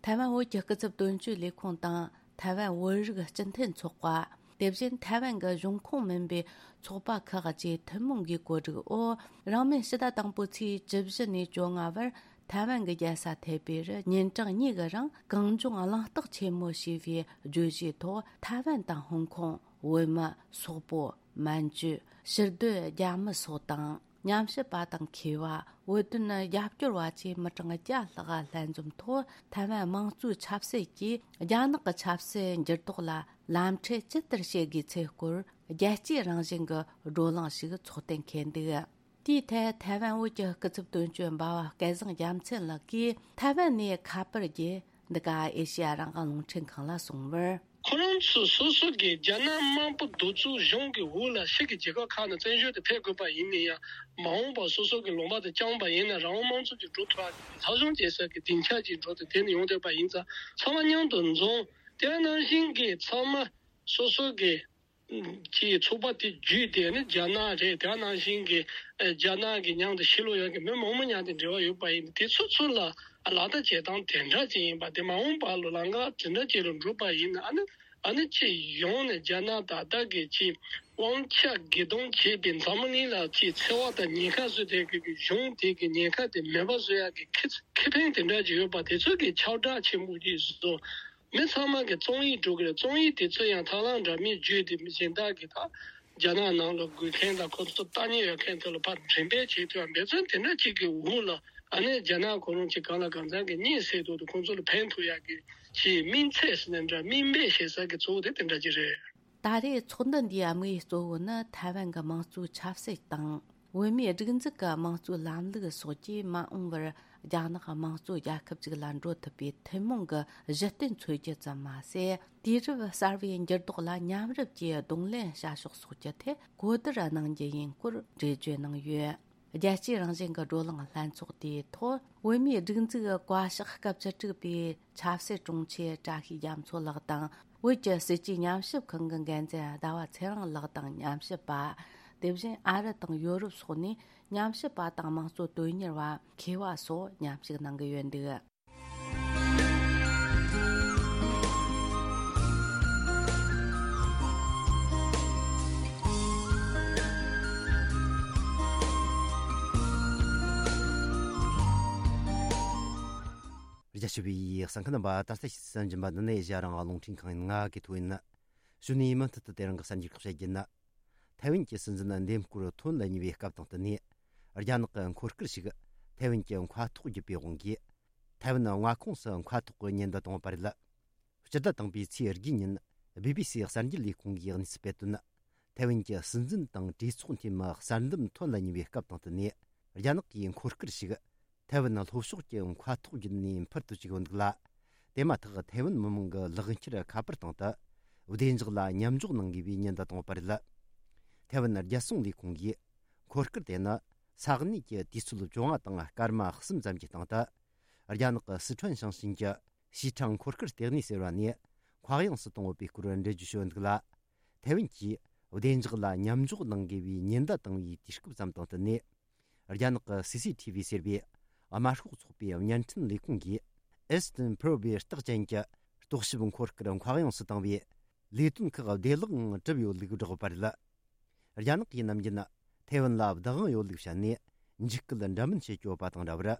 ཐའེ་ཝན་བོད་ཀྱི་སྐུ་ཚབ་དོན་གཅོད་ལས་ཁུངས་དང་ཐའེ་ཝན་བོད་རིགས་སྤྱི་མཐུན་ཚོགས་པ། དེ་བཞིན་ཐའེ་ཝན་གྱི་གཞུང་ཁོངས་མིན་པའི་ཚོགས་པ་ཁག་བཅས་ཐུན་མོང་གིས་གོ་སྒྲིག་འོག་རིང་མིན་ཕྱི་ཟླ་དང་པོའི་ཚེས་བཅུ་བཞི་ནས་བཅོ་ལྔ་བར། ཐའེ་ཝན་གྱི་རྒྱལ་ས་ཐའེ་པེ་རུ་ཉིན་གྲངས་གཉིས་ཀྱི་རིང་གངས་ལྗོངས་གླེང་སྟེགས་ཆེན་མོ་ཞེས་པའི་བརྗོད་གཞིའི་ཐོག་ཐའེ་ཝན་དང་ཧོང་ཀོང་། བོད་མི། སོག་པོ། མན་ཇུ། ཕྱིར་སྡོད་རྒྱ་མི་སོགས་དང་། ཉམས་ཞིབ་པ་དང་མཁས་པ། བོད་དོན་རྒྱབ་སྐྱོར་བ་བཅས་མི་གྲངས་བརྒྱ་ལྷག་ལྷན་འཛོམས་ཐོག་ཐའེ་ཝན་དམངས་གཙོའི་ཆབ་སྲིད་ཀྱིས་རྒྱ་ནག་གི་ཆབ་སྲིད་འགྱུར་ལྡོག་ལ་ལམ་ཁྲིད་ཇི་ལྟར་བྱེད་དགོས་ཚུལ་སྐོར་རྒྱལ་སྤྱིའི་རང་བཞིན་གྱི་བགྲོ་གླེང་ཞིག་ཚོགས་གཏན་འཁེལ་འདུག་དེའི་ཐད་ཐའེ་ཝན་བོད་ཀྱི་སྐུ་ཚབ་དོན་གཅོད་འབའ་བ་སྐལ་བཟང་རྒྱལ་མཚན་ལགས་ཀྱིས། ཐའེ་ཝན་ནས་ཁ་པར་བརྒྱུད་འདི་ག་ཨེ་ཤེ་ཡ་རང་དབང་རླུང་འཕྲིན་ཁང་ལ་གསུངས་པར། ཁོ་རང་ཚོ་སོ་སོ་གི་རྒྱ་ནག་དམར་པོ་གདུག་རྩུབ་གཞུང་གི་འོག་ལ་ཕྱི་གི་རྒྱལ་ཁབ་ཁག་ནས་བཙན་བྱོལ་དུ་ཕེབས་དགོས་པ་ཡིན་ན་ཡང་། མ་འོངས་པར་སོ་སོ་གི་ལུང་པ་དེ་བསྐྱངས་པ་ཡིན་ན། རང་དབང་དམངས་གཙོ་ཅིག་འགྲོ་ཐུབ་པ་གི་ལྷག་བྱུང་བྱེད་ས་གི་སྡིངས་ཆ་ཅིག་འགྲོ་དེ་དེ་ནས་ཡོང་བསྡད་པ་ཡིན་ཙང་། ཚང་མ་མཉམ་དུ་འཛོམས། དེ་ནང་བཞིན་གྱི་ཚང་མ་སོ་སོ་གི་གྱི་ཚོགས་པ་དེ་བརྒྱུད་དེ་ནི་རྒྱ་ནག་རེད། དེ་ནང་བཞིན་གྱི་ཨ་རྒྱ་ནག་གི་མཉམ་དུ་ཕྱི་ལོགས་ཡོད་ཀྱི་མི་མང་པོ་མཉམ་དུ་འབྲེལ་བ་ཡོད་པ་ཡིན། དེ་ཚོ་ཚུར་ལ་ལག་བསྟར་བྱེད་སྟངས་དེ་འདྲ་ཅིག་ཡིན་པ་དེ་མ་འོངས་པ་ལ་ལམ་ཁ་དེ་འདྲ་ཅིག་ལ་འགྲོ་པ་ཡིན་ན། ཨ་ནི་ཨ་ནི་ཅིག་ཡོང་ནས་རྒྱ་ནག་ད་ལྟ་གི་ཅིག་དབང་ཆ་སྒེར་སྡོམ་བྱས་པའི་འཛམ་བུ་གླིང་ལ་ཅིག་འཚེ་བ་དང་ཉེན་ཁ་བཟོས་བསྡད་ཀྱི་གཞུང་དེ་གི་ཉེན་ཁ་དེ་མེད་པ་བཟོ་ཡག་གི་ཁེ་ཁེ་ཕན་དེ་འདྲ་ཅིག་ཡོད་པ་དེ་ཚོ་གི་ཁྱབ་བསྒྲགས་ཆེན་པོ་ཅིག་བཟོ། མི་ཚང་མ་གི་རྩོམ་ཡིག་འགྲོ་གི་རེད། རྩོམ་ཡིག་དེ་ཚོ་ཡང་ཐབས་ལམ་འདྲ་མིན་བརྒྱུད་དེ་མི་གཞན་དག་གི་ད་རྒྱ་ནག་ནང་ལ་དགོས་མཁན་དང་ཁོ་ཚོ་ལྟ་ཉན་ཡོད་མཁན་དེ་ལ་ཕར་འགྲེམས་སྤེལ་བྱེད་ཐུབ་ཡ། འབད་བརྩོན་དེ་འདྲ་གཅིག་གི་འོག་ལ་ཨ་ནི་རྒྱ་ནག་ཁོ་རང་གཅིག་གང་ལ་གང་འཚམ་གི་གཉེན་སྲེག་ཐུབ་དུས་ཁོང་ཚོ་ལ་ཕན་ཐོགས་ཡ་གི་ཅིག་སྨིན་ཚད་ཟེར་ན་འདྲ། སྨིན་པའི་ཞེ་ས་གི་གཙོ་བོ་དེ་དེ་འདྲ་ཅིག་རེད། ད་རེས་ཚོགས་འདུ་འདིའི་དམིགས་ཡུལ་གཙོ་བོ་ནི་ཐའེ་ཝན་གྱི་དམངས་གཙོའི་ཆབ་སྲིད་དང་། བོད་མིའི་སྒྲིག་འཛུགས་ཀྱི་དམངས་གཙོའི་ལམ་ལུགས་སོགས་ཀྱིས་མ་འོངས་པར་རྒྱ་ནག་དམངས་གཙོ་རྒྱལ་ཁབ་ཅིག་ལ་འགྲོ་ཐུབ་པའི་ཐུན་མོང་གི་གཞི་རྟེན་འཚོལ་རྒྱུ་ཙམ་མ་ཟད། དུས་རབས་གསར་བའི་འགྱུར་ལྡོག་ལ་མཉམ་རུབ་ཀྱིས་གདོང་ལེན་བྱ་ཕྱོགས་སོགས་ཀྱི་ཐད་གོ་བསྡུར་གནང་རྒྱུ་ཡིན་སྐོར་འགྲེལ་བརྗོད་གནང་ཡོད། རྒྱལ་སྤྱིའི་རང་བཞིན་གྱི་བགྲོ་གླེང་ལྷན་ཚོགས་དེའི་ཐོག་བོད་མིའི་སྒྲིག་འཛུགས་ཀྱི་བཀའ་ཤག་སྐབས་བཅུ་དྲུག་པའི་ཆབ་སྲིད་དྲུང་ཆེ་བཀྲ་ཤིས་རྒྱ་མཚོ་ལགས་དང་། བོད་ཀྱི་སྲིད་བྱུས་ཉམས་ཞིབ་ཁང་གི་འགན་འཛིན་ཟླ་བ་ཚེ་རིང་ལགས་དང་ཉམས་ཞིབ་པ། དེ་བཞིན་ཨ་རི་དང་ཡོ་རོབ་སོགས་ནས་ཉམས་ཞིབ་པ་དང་དམངས་གཙོ་དོན་གཉེར་བ། མཁས་པ་སོགས་མཉམ་ཞུགས་གནང་གི་ཡོད་འདུག་རྒྱ་ཆེ་བའི་གསན་མཁན་རྣམ་པ། ད་ལྟ་ཞིག་གསན་བཞིན་པ་འདི་ནི་ཨེ་ཤ་ཡ་རང་དབང་རླུང་འཕྲིན་ཁང་ཡིན། ང་གི་ཐོ་ཡིན། གཞུག་ནས་མུ་མཐུད་དུ་དེ་རིང་གི་གསར་འགྱུར་ཁག་བཤད་རྒྱུ་ན། ཐའེ་ཝན་གྱི་སྲིད་འཛིན་འདེམས་བསྐོ་ཐོན་ལ་ཉེ་བའི་སྐབས་དང་བསྟུན་ནས། རྒྱ་ནག་གི་འཁོར་སྐར་ཞིག་ཐའེ་ཝན་གྱི་མཁའ་ཐོག་བརྒྱུད་པའི་དབང་གིས། ཐའེ་ཝན་མངའ་ཁོངས་སུ་མཁའ་ཐོག་གི་ཉེན་བརྡ་བཏང་བ་རེད། སྤྱི་ཟླ་དང་པོའི་ཚེས་དགུའི་ཉིན། བི་བི་སི་གསར་འགྱུར་ལས་ཁུངས་ཀྱིས་གནས་ཚུལ་སྤེལ་དོན། ཐའེ་ཝན་གྱི་སྲིད་འཛིན་དང་གྲོས་ཚོགས་འཐུས་མི་གསར་འདེམས་ཐོན་ལ་ཉེ་བའི་སྐབས་དང་བསྟུན་ནས། རྒྱ་ནག་གིས་འཁོར་སྐར་ཞིག་ཐའེ་ཝན་ལྷོ་ཕྱོགས་ཀྱི་མཁའ་ཐོག་བརྒྱུད་ནས་འཕུར་དུ་བཅུག་ཡོད་འདུག་ལ། དེ་མ་ཐག་ཐའེ་ཝན་མི་མང་གི་ལག་འཁྱེར་ཁ་པར་སྟེང་དུ། བདེ་འཇགས་ལ་མཉམ་འཇོག་གནང་དགོས་པའི་ཉེན་བརྡ་བཏང་ཡོད་པ་རེད། ཐའེ་ཝན་རྒྱལ་སྲུང་ལས་ཁུངས་ཀྱིས། འཁོར་སྐར་དེ་ནི། ས་གནས་ཀྱི་དུས་ཚོད་བཅོ་ལྔ་དང་སྐར་མ་གསུམ་ཙམ་གྱི་སྟེང་དུ། རྒྱ་ནག་གི་སི་ཁྲོན་ཞིང་ཆེན་གྱི། ཞི་ཁྲང་འཁོར་སྐར་ལྟེ་གནས་ཟེར་བ་ནས་མཁའ་དབྱིངས་སུ་བཏང་ཡོད་པའི་སྐོར་འགྲེལ་བརྗོད་བྱས་ཡོད་འདུག་ལ། ཐའེ་ཝན་གྱིས་བདེ་འཇགས་ལ་མཉམ་འཇོག་གནང་དགོས་པའི་ཉེན་བརྡ་བཏང་བའི་དུས་སྐབས་ཙམ་དང་བསྟུན་ནས། རྒྱ་ནག་གི་སི་སི་ཐི་བི་ཟེར་བའི་དམར་ཤོག་ཚོགས་པའི་བརྙན་འཕྲིན་ལས་ཁུངས་ཀྱིས་ཨེ་སི་ཏིན་པྲོ་བའི་རྟགས་ཅན་གྱི་རྟོག་ཞིབ་འཁོར་སྐར་མཁའ་དབྱིངས་སུ་བཏང་བའི་ལས་དོན་ཁག་བདེ་བླག་ངང་གྲུབ་ཡོད་ལུགས་བསྒྲགས་པ་རེད། རྒྱ་ནག་གིས་ནམ་རྒྱུན་ཐའེ་ཝན་ལ་བདག་དབང་ཡོད་ལུགས་བཤད་ནས་འཇིགས་སྐུལ་འདྲ་མིན་བྱེད་ཀྱི་ཡོད་པ་དང་འདྲ་བར།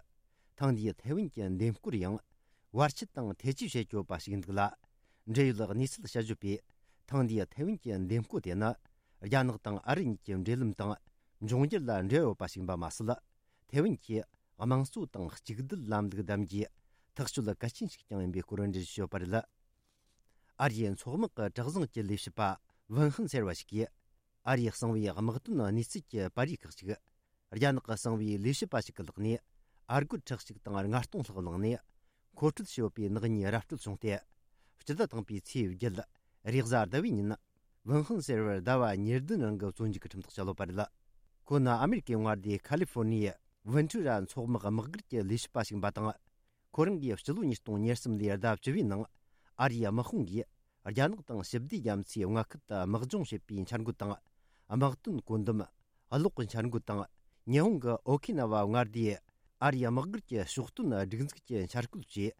ཐེངས་འདིའི་ཐའེ་ཝན་གྱི་འདེམས་བསྐོར་ཡང་བར་ཆད་དང་ཐེ་ཇུས་བྱེད་ཀྱི་ཡོད་པ་ཞིག་འདུག་ལ། འབྲེལ་ཡོད་གནས་ཚུལ་དཔྱད་བརྗོད་པས། ཐེངས་འདིའི་ཐའེ་ཝན་གྱི་འདེམས་བསྐོ་དེ་ནི། རྒྱ་ནག་དང་ཨ་རི་གཉིས་ཀྱི་འབྲེལ་ལམ་དང་འབྱུང་འགྱུར་ལ་འབྲེལ་ཡོད་པ་ཞིག་ཡིན་པ་མ་ཟད། ཐའེ་ཝན་གྱིས་དམངས་གཙོ་དང་གཅིག་སྡུད་ལམ་ལུགས་བདམས་རྒྱུའི་ཐག་གཅོད་གལ་ཆེན་ཞིག་ཀྱང་ཡིན་པའི་སྐོར་འགྲེལ་བརྗོད་བྱས་ཡོད་པ་རེད། ཨ་རིའི་མཚོ་དམག་གི་གྲུ་གཟིངས་ཀྱི་ལས་བྱེད་པ་ཝུན་ཧན་ཟེར་བ་ཞིག་གིས། ཨ་རིའི་གསང་བའི་དམག་དོན་གནས་ཚུལ་གྱི་པར་རིས་ཁག་ཅིག་རྒྱ་ནག་གི་གསང་བའི་ལས་བྱེད་པ་ཞིག་གི་ལག་ནས། ཨ་སྒོར་ཁྲི་གཅིག་དང་ལྔ་སྟོང་ལྷག་བླངས་ནས། མཁོ་སྤྲོད་བྱས་ཡོད་པའི་ནག་ཉེས་ར་སྤྲོད་བྱུང་སྟེ། སྤྱི་ཟླ་དང་པོའི་ཚེས་བརྒྱད། རེས་གཟའ་ཟླ་བའི་ཉིན། ཝུན་ཧན་ཟེར་བར་ཟླ་བ་ཉེར་བདུན་རིང་གི་བཙོན་འཇུག་གི་ཁྲིམས་ཐག་བཅད་ཡོད་པ་རེད། ཁོ་ནི་ཨ་མེ་རི་ཀའི་མངའ་སྡེ་ཁ་ལི་ཧྥོ་ནི་ཡའི་ཝེན་ཊུ་ར་མཚོ་དམག་དམག་སྒར་གྱི་ལས་བྱེད་པ་ཞིག་ཡིན་པ་དང་། ཁོ་རང་གིས་སྤྱི་ལོ་ཉིས་སྟོང་ཉེར་གསུམ་ལོའི་ཟླ་བཅུ་བའི་ནང་། ཨ་རིའི་དམག་དཔུང་གིས་རྒྱ་ནག་དང་ཞི་བདེ་རྒྱ་མཚོའི་མངའ་ཁུལ་དུ་དམག་སྦྱོང་བྱེད་པའི་འཆར་འགོད་དང་། དམག་དོན་བཀོད་འདོམས། གློག་གི་འཆར་འགོད་དང་། ཉི་ཧོང་གི་ཨོ་ཁི་ན་ཝ་མངའ་སྡེའི་ཨ་རིའི་དམག་སྒར་གྱི་ཕྱོགས་སྟོན་སྒྲིག་འཛུགས་ཀྱི་འཆར་བཀོད་བཅས།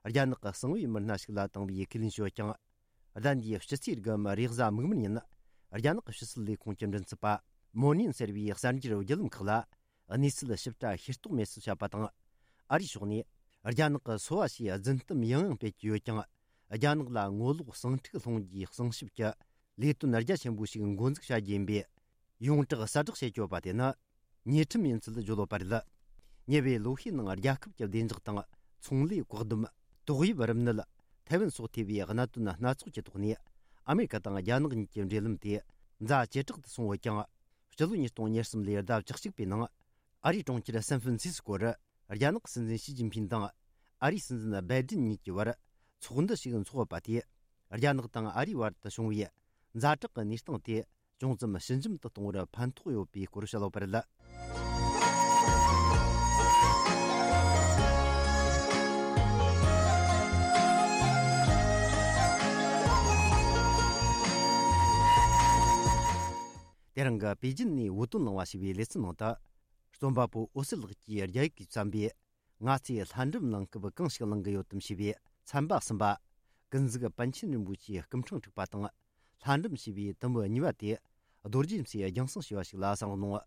རྒྱ་ནག་གི་གསང་བའི་མི་སྣ་ཞིག་ལ་བཏང་བའི་ཁས་ལེན་ཞུས་ཀྱང་། ཟླ་འདིའི་ཕྱི་ཚེས་དགུ་མ་རེས་གཟའ་མིག་དམར་ཉིན། རྒྱ་ནག་གི་ཕྱི་སྲིད་ལས་ཁུངས་ཀྱི་མགྲིན་ཚབ་པ་མོ་ནིན་ཟེར་བའི་གསར་འགྱུར་བརྒྱུད་ལམ་ཁག་ལ། གནས་ཚུལ་ཞིབ་ཕྲ་ཤེས་རྟོགས་མེད་ཚུལ་བཤད་པ་དང་། ཨ་རིའི་ཕྱོགས་ནས་རྒྱ་ནག་གི་སོ་བ་ཞེས་རྫུན་གཏམ་ཡང་ཡང་སྤེལ་གྱི་ཡོད་ཀྱང་། རྒྱ་ནག་ལ་ངོ་ལོག་ཟིང་འཁྲུག་སློང་རྒྱུའི་གསང་ཞིབ་ཀྱི་ལས་དོན་རྒྱ་ཆེན་པོ་ཞིག་འགོ་འཛུགས་བྱ་རྒྱུ་ཡིན་པས། ཡོངས་གྲགས་གསལ་བསྒྲགས་བྱེད་ཀྱི་ཡོད་པ་དེ་ནི། ཉེས་ཁྲིམས་ཡིན་ཚུལ་བརྗོད་ཡོད་པ་རེད། ཉེ་བའི་ལོ་ཤས་ནང་རྒྱལ་ཁབ་ཀྱི་བདེ་འཇགས་དང་། ཚོང་ལས། བཀག་སྡོམ། ཏོག་དབྱིབས་རིམས་ནད། ཐའེ་ཝན་སོགས་ཐེ་བའི་གནད་དོན་སྣ་ཚོགས་ཀྱི་ཐོག་ནས། ཨ་མེ་རི་ཀ་དང་རྒྱ་ནག་གཉིས་ཀྱི་འབྲེལ་ལམ་དེ་ཛ་ཇེ་དྲག་ཏུ་སོང་ཡོད་ཀྱང་། སྤྱི་ལོ་ཉིས་སྟོང་ཉེར་གསུམ་ལོའི་ཟླ་བཅུ་གཅིག་པའི་ནང་། ཨ་རིའི་གྲོང་ཁྱེར་སན་ཧྥན་སིས་ཀོ་རུ། རྒྱ་ནག་སྲིད་འཛིན་ཞི་ཅིན་ཕིན་དང་། ཨ་རིའི་སྲིད་འཛིན་སྦའི་ཏིན་གཉིས་ཀྱི་བར། ཚོགས་འདུ་ཞིག་འཚོགས་ཡོད་པ་དེས། རྒྱ་ནག་དང་ཨ་རིའི་བར་དུ་བྱུང་བའི་ཛ་དྲག་གི་གནས་སྟངས་དེ། ཅུང་ཙམ་ཞི་འཇམ་དུ་གཏོང་བར་ཕན་ཐོགས་ཡོད་པའི་སྐོར་བཤད་ཡོད་པ་རེད། དེ་རིང་གི་པེ་ཅིན་ནས་བོད་དོན་གླེང་བ་ཞེས་པའི་ལེ་ཚན་ནང་དུ། རྩོམ་པ་པོ་འོད་ཟེར་ལགས་ཀྱིས་རྒྱ་ཡིག་གིས་བརྩམས་པའི། ང་ཚོས་ལྷ་འབྲུམ་གླེང་སྐབས་གང་ཞིག་གླེང་གི་ཡོད་དམ་ཞེས་པའི་ཚན་པ་གསུམ་པ། ཀུན་གཟིགས་པཎ་ཆེན་རིན་པོ་ཆེའི་སྐུ་ཕྲེང་དྲུག་པ་དང་། ལྷ་འབྲུམ་ཞེས་པའི་དུམ་བུ་གཉིས་པ་དེ། རྡོ་རྗེ་མཚོས་རྒྱང་སྲིང་ཞུས་པ་ཞིག་ལ་གསན་རོགས་གནང་།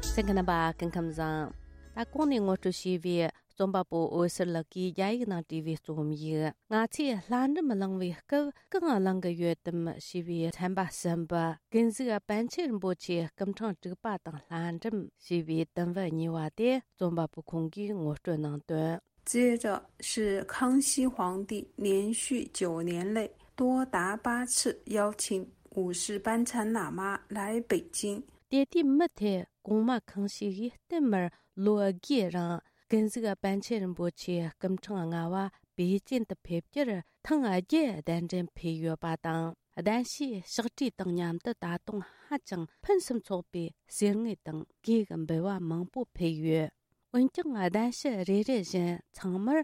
གསན་མཁན་རྣམ་པ་སྐུ་ཁམས་བཟང་། ད་གོང་ནས་ངོ་སྤྲོད་བྱས་པའི་རྩོམ་པ་པོ་འོད་ཟེར་ལགས་ཀྱིས་རྒྱ་ཡིག་ནང་བྲིས་པའི་རྩོམ་ཡིག་ང་ཚོས་ལྷ་འབྲུམ་གླེང་བའི་སྐབས་གང་གླེང་གི་ཡོད་དམ་ཞེས་པའི་ཚན་པ་གསུམ་པ། ཀུན་གཟིགས་པཎ་ཆེན་རིན་པོ་ཆེའི་སྐུ་ཕྲེང་དྲུག་པ་དང་ལྷ་འབྲུམ་ཞེས་པའི་དུམ་བུ་གཉིས་པ་དེ་རྩོམ་པ་པོ་ཁོང་གིས་ངོ་སྤྲོད་གནང་དོན། 接着是康熙皇帝连续九年内多达八次邀请五世班禅喇嘛来北京。 དེ་དུས་མུ་མཐུད་གོང་མ་ཁང་ཤིས་ཀྱིས་བསྟུད་མར་ལོ་དགུའི་རིང་ཀུན་གཟིགས་པཎ་ཆེན་རིན་པོ་ཆེའི་སྐུ་ཕྲེང་ལྔ་པ་པེ་ཅིན་དུ་ཕེབས་རྒྱུར་ཐེངས་བརྒྱད་གདན་འདྲེན་ཕུལ་ཡོད་པ་དང་། གདན་ཞུའི་ཕྱག་བྲིས་དང་མཉམ་དུ་ད་དུང་ཧ་ཅང་ཕུན་སུམ་ཚོགས་པའི་གསེར་དངུལ་དང་གོས་ཀྱི་འབུལ་བ་མང་པོ་ཕུལ་ཡོད། འོན་ཀྱང་གདན་ཞུ་རེ་རེ་བཞིན་ཚང་མར་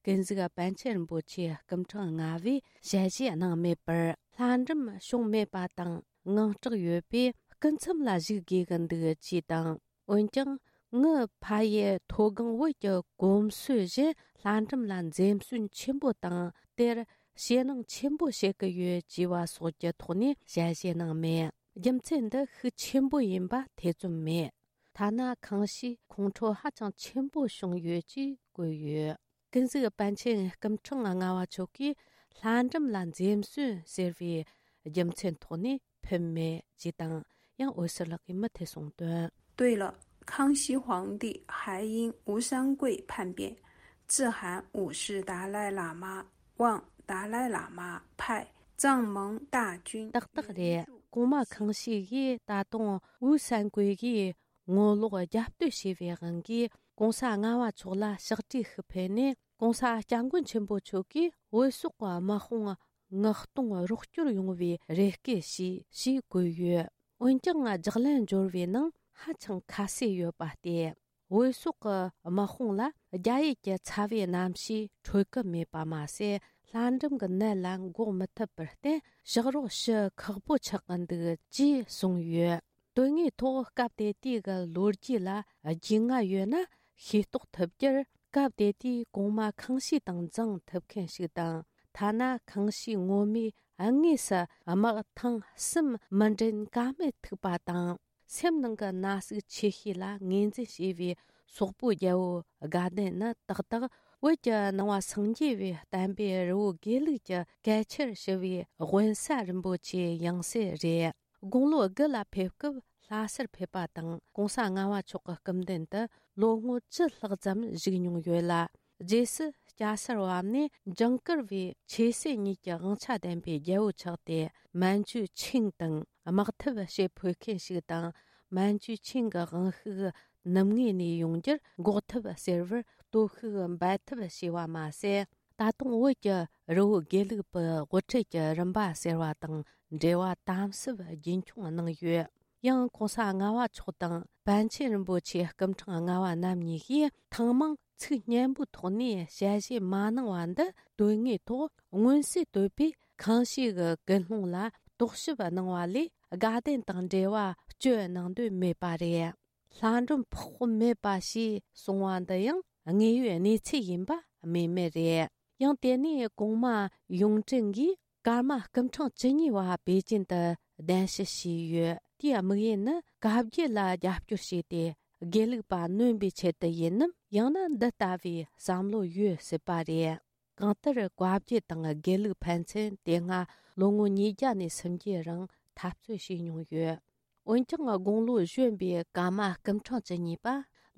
ཀུན་གཟིགས་པཎ་ཆེན་རིན་པོ་ཆེའི་སྐུ་ཕྲེང་ལྔ་པས་ཞལ་བཞེས་གནང་མེད་པར། ལྷ་འབྲུམ་བྱུང་མེད་པ་དང་དངངས་སྐྲག་ཡོད་པས་སྐུ་མཚམས་ལ་བཞུགས་དགོས་ཀྱི་འདུག་ཅེས་དང་། འོན་ཀྱང་ངའི་ཕ་ཡུལ་མཐོ་སྒང་བོད་ཀྱི་གོམས་སྲོལ་བཞིན་ལྷ་འབྲུམ་ལ་འཛེམ་ཟོན་ཆེན་པོ་དང་དེར་ཞེད་སྣང་ཆེན་པོ་བྱེད་ཀྱི་ཡོད་ཅེས་པ་སོགས་ཀྱི་ཐོག་ནས་ཞལ་བཞེས་གནང་མེད། རྒྱུ་མཚན་འདི་ཤུགས་ཆེན་པོ་ཡིན་པ་ཐེ་ཚོམ་མེད། ཐ་ན་ཁང་ཤིས་ཁོང་ཁྲོ་ཧ་ཅང་ཆེན་པོ་བྱུང་ཡོད་ཅེས་བཀོད་ཡོད། ཀུན་གཟིགས་པཎ་ཆེན་སྐུ་ཕྲེང་ལྔ་པ་མཆོག་གིས་ལྷ་འབྲུམ་ལ་འཛེམ་ཟོན་ཟེར་བའི་རྒྱུ་མཚན་ཐོག་ནས་ཕེབས་མེད་ཅེས་དང་། ཡང་འོད་ཟེར་ལགས་ཀྱིས་མུ་མཐུད་གསུངས་དོན། 对了，康熙皇帝还因吴三桂叛变，致函五世达赖喇嘛，望达赖喇嘛派藏蒙大军 ཏག་ཏག་རེད། གོང་མ་ཁང་ཤིས་ཀྱིས་ད་དུང་ཝུའུ་སན་ཀུའེ་ཀྱིས་ངོ་ལོག་རྒྱབ་གཏོད་བྱས་པའི་དབང་གིས་༸གོང་ས་ལྔ་པ་མཆོག་ལ་ཕྱག་བྲིས་ཤིག་ཕུལ་ནས། ༸གོང་ས་༸སྐྱབས་མགོན་ཆེན་པོ་མཆོག་གིས་བོད་སོག་གི་དམག་དཔུང་མངགས་གཏོང་རོགས་སྐྱོར་ཡོང་བའི་རེ་སྐུལ་བྱས་ཞེས་བཀོད་ཡོད། འོན་ཀྱང་ལྗགས་ལན་འབྱོར་བའི་ནང་ཧ་ཅང་ཁ་གསལ་ཡོད་པ་སྟེ། བོད་སོག་གི་དམག་དཔུང་ལ་རྒྱ་ཡུལ་གྱི་ཚ་བའི་གནམ་གཤིས་འཕྲོད་ཀྱི་མེད་པ་མ་ཟད། ལྷ་འབྲུམ་གྱི་ནད་ལ་འགོག་མི་ཐུབ་པར་བརྟེན། ཕྱག་རོགས་ཞུ་ཁག་པོ་ཆགས་ཀྱི་འདུག་ཅེས་གསུངས་ཡོད། དོན་དངོས་ཐོག་སྐབས་དེ་དུས་ཀྱི་ལོ་རྒྱུས་ལ་རྒྱུས་མངའ་ཡོད་ན་ཤེས་རྟོགས་ཐུབ་རྒྱུར། སྐབས་དེ་དུས་གོང་མ་ཁང་ཤིས་དང་མཛངས་ཐུབ་མཁན་ཞིག་དང་། ཐ་ན་ཁང་ཤིས་ངོ་མས་དངོས་སུ་དམག་ཐེངས་གསུམ་མི་འདྲེན་ཀ་མེད་ཐུག་པ་དང་། སེམས་ནང་གི་ན་ཟུག་ཆེ་ཤོས་ལ་ངོས་འཛིན་བྱས་པའི་སོག་པོའི་རྒྱལ་པོ་དགའ་ལྡན་ནི་ཏག་ཏག་བོད་ཀྱི་ནང་པ་སངས་རྒྱས་པའི་བསྟན་པའི་རི་བོ་དགེ་ལུགས་ཀྱི་གལ་ཆེར་ཞུ་བའི་དབེན་ས་རིན་པོ་ཆེའི་ཡང་སྲིད་རེད། དགུང་ལོ་དགུ་ལ་ཕེབས་སྐབས་ལྷ་སར་ཕེབས་པ་དང་༸གོང་ས་ལྔ་པ་མཆོག་གི་སྐུ་མདུན་དུ་ལོ་ངོ་བཅུ་ལྷག་ཙམ་བཞུགས་མྱོང་ཡོད་ལ། རྗེས་སུ་སྐྱ་སར་བབས་ནས་ཇིང་གུར་བའི་ཆོས་སྲིད་གཉིས་ཀྱི་དབང་ཆ་ལྡན་པའི་རྒྱལ་པོ་ཆགས་ཏེ། མན་ཇུ་ཆིང་དང་དམག་འཐབ་བྱེད་ཕོད་མཁན་ཞིག་དང་། མན་ཇུ་ཆིང་གི་དབང་ཤུགས་ནུབ་ངོས་ནས་ཡོང་རྒྱུར་འགོག་ཐབས་ཟེར་བར་སྟོབས་ཤུགས་འབད་ཐབས་བྱས་པ་མ་ཟད། ད་དུང་བོད་ཀྱི་རི་བོ་དགེ་ལུགས་པའི་དབུ་ཁྲིད་ཀྱི་རིམ་པ་ཟེར་བ་དང་འབྲེལ་བ་དམ་ཟབ་རྒྱུན་འཁྱོངས་གནང་ཡོད། ཡང་༸གོང་ས་ལྔ་པ་མཆོག་དང་པཎ་ཆེན་རིན་པོ་ཆེ་སྐུ་ཕྲེང་ལྔ་པ་རྣམ་གཉིས་ཀྱིས་ཐེངས་མང་ཚིག་སྙན་པོའི་ཐོག་ནས་ཞལ་བཞེས་མ་གནང་བ་འདི། དོན་དངོས་ཐོག་མངོན་གསལ་དོད་པའི་ཁང་ཤིས་ཀྱི་ཀུན་སློང་ལ་རྟོག་ཞིབ་གནང་བ་ལས། དགའ་ལྡན་དང་འབྲེལ་བ་གཅོད་གནང་འདོད་མེད་པ་རེད། ལྷ་འབྲུམ་ཕོག་མེད་པ་ཞེས་གསུང་བ་འདི་ཡང་དངོས་ཡོད་གནས་ཚུལ་ཡིན་པ་སྨོས་མེད་རེད། ཡང་དེ་ནས་གོང་མ་ཡུང་ཀྲེང་གིས་ཀརྨ་སྐུ་ཕྲེང་བཅུ་གཉིས་པ་པེ་ཅིན་དུ་གདན་ཞུ་བྱས་ཡོད། དེའི་དམིགས་ཡུལ་ནི་བཀའ་བརྒྱུད་ལ་རྒྱབ་སྐྱོར་བྱས་ཏེ། དགེ་ལུགས་པ་ནོན་པའི་ཆེད་དུ་ཡིན་ནམ། ཡང་ན་འདི་ལྟ་བུའི་བསམ་བློ་ཡོད་སྲིད་པ་རེད། གང་ལྟར་བཀའ་བརྒྱུད་དང་དགེ་ལུགས་ཕན་ཚུན་དེ་སྔ་ལོ་ངོ་ཉིས་བརྒྱ་ནས་སུམ་བརྒྱའི་རིང་འཐབ་རྩོད་བྱས་མྱོང་ཡོད། འོན་ཀྱང་དགུང་ལོ་གཞོན་པའི་ཀརྨ་སྐུ་ཕྲེང་བཅུ་གཉིས་པ་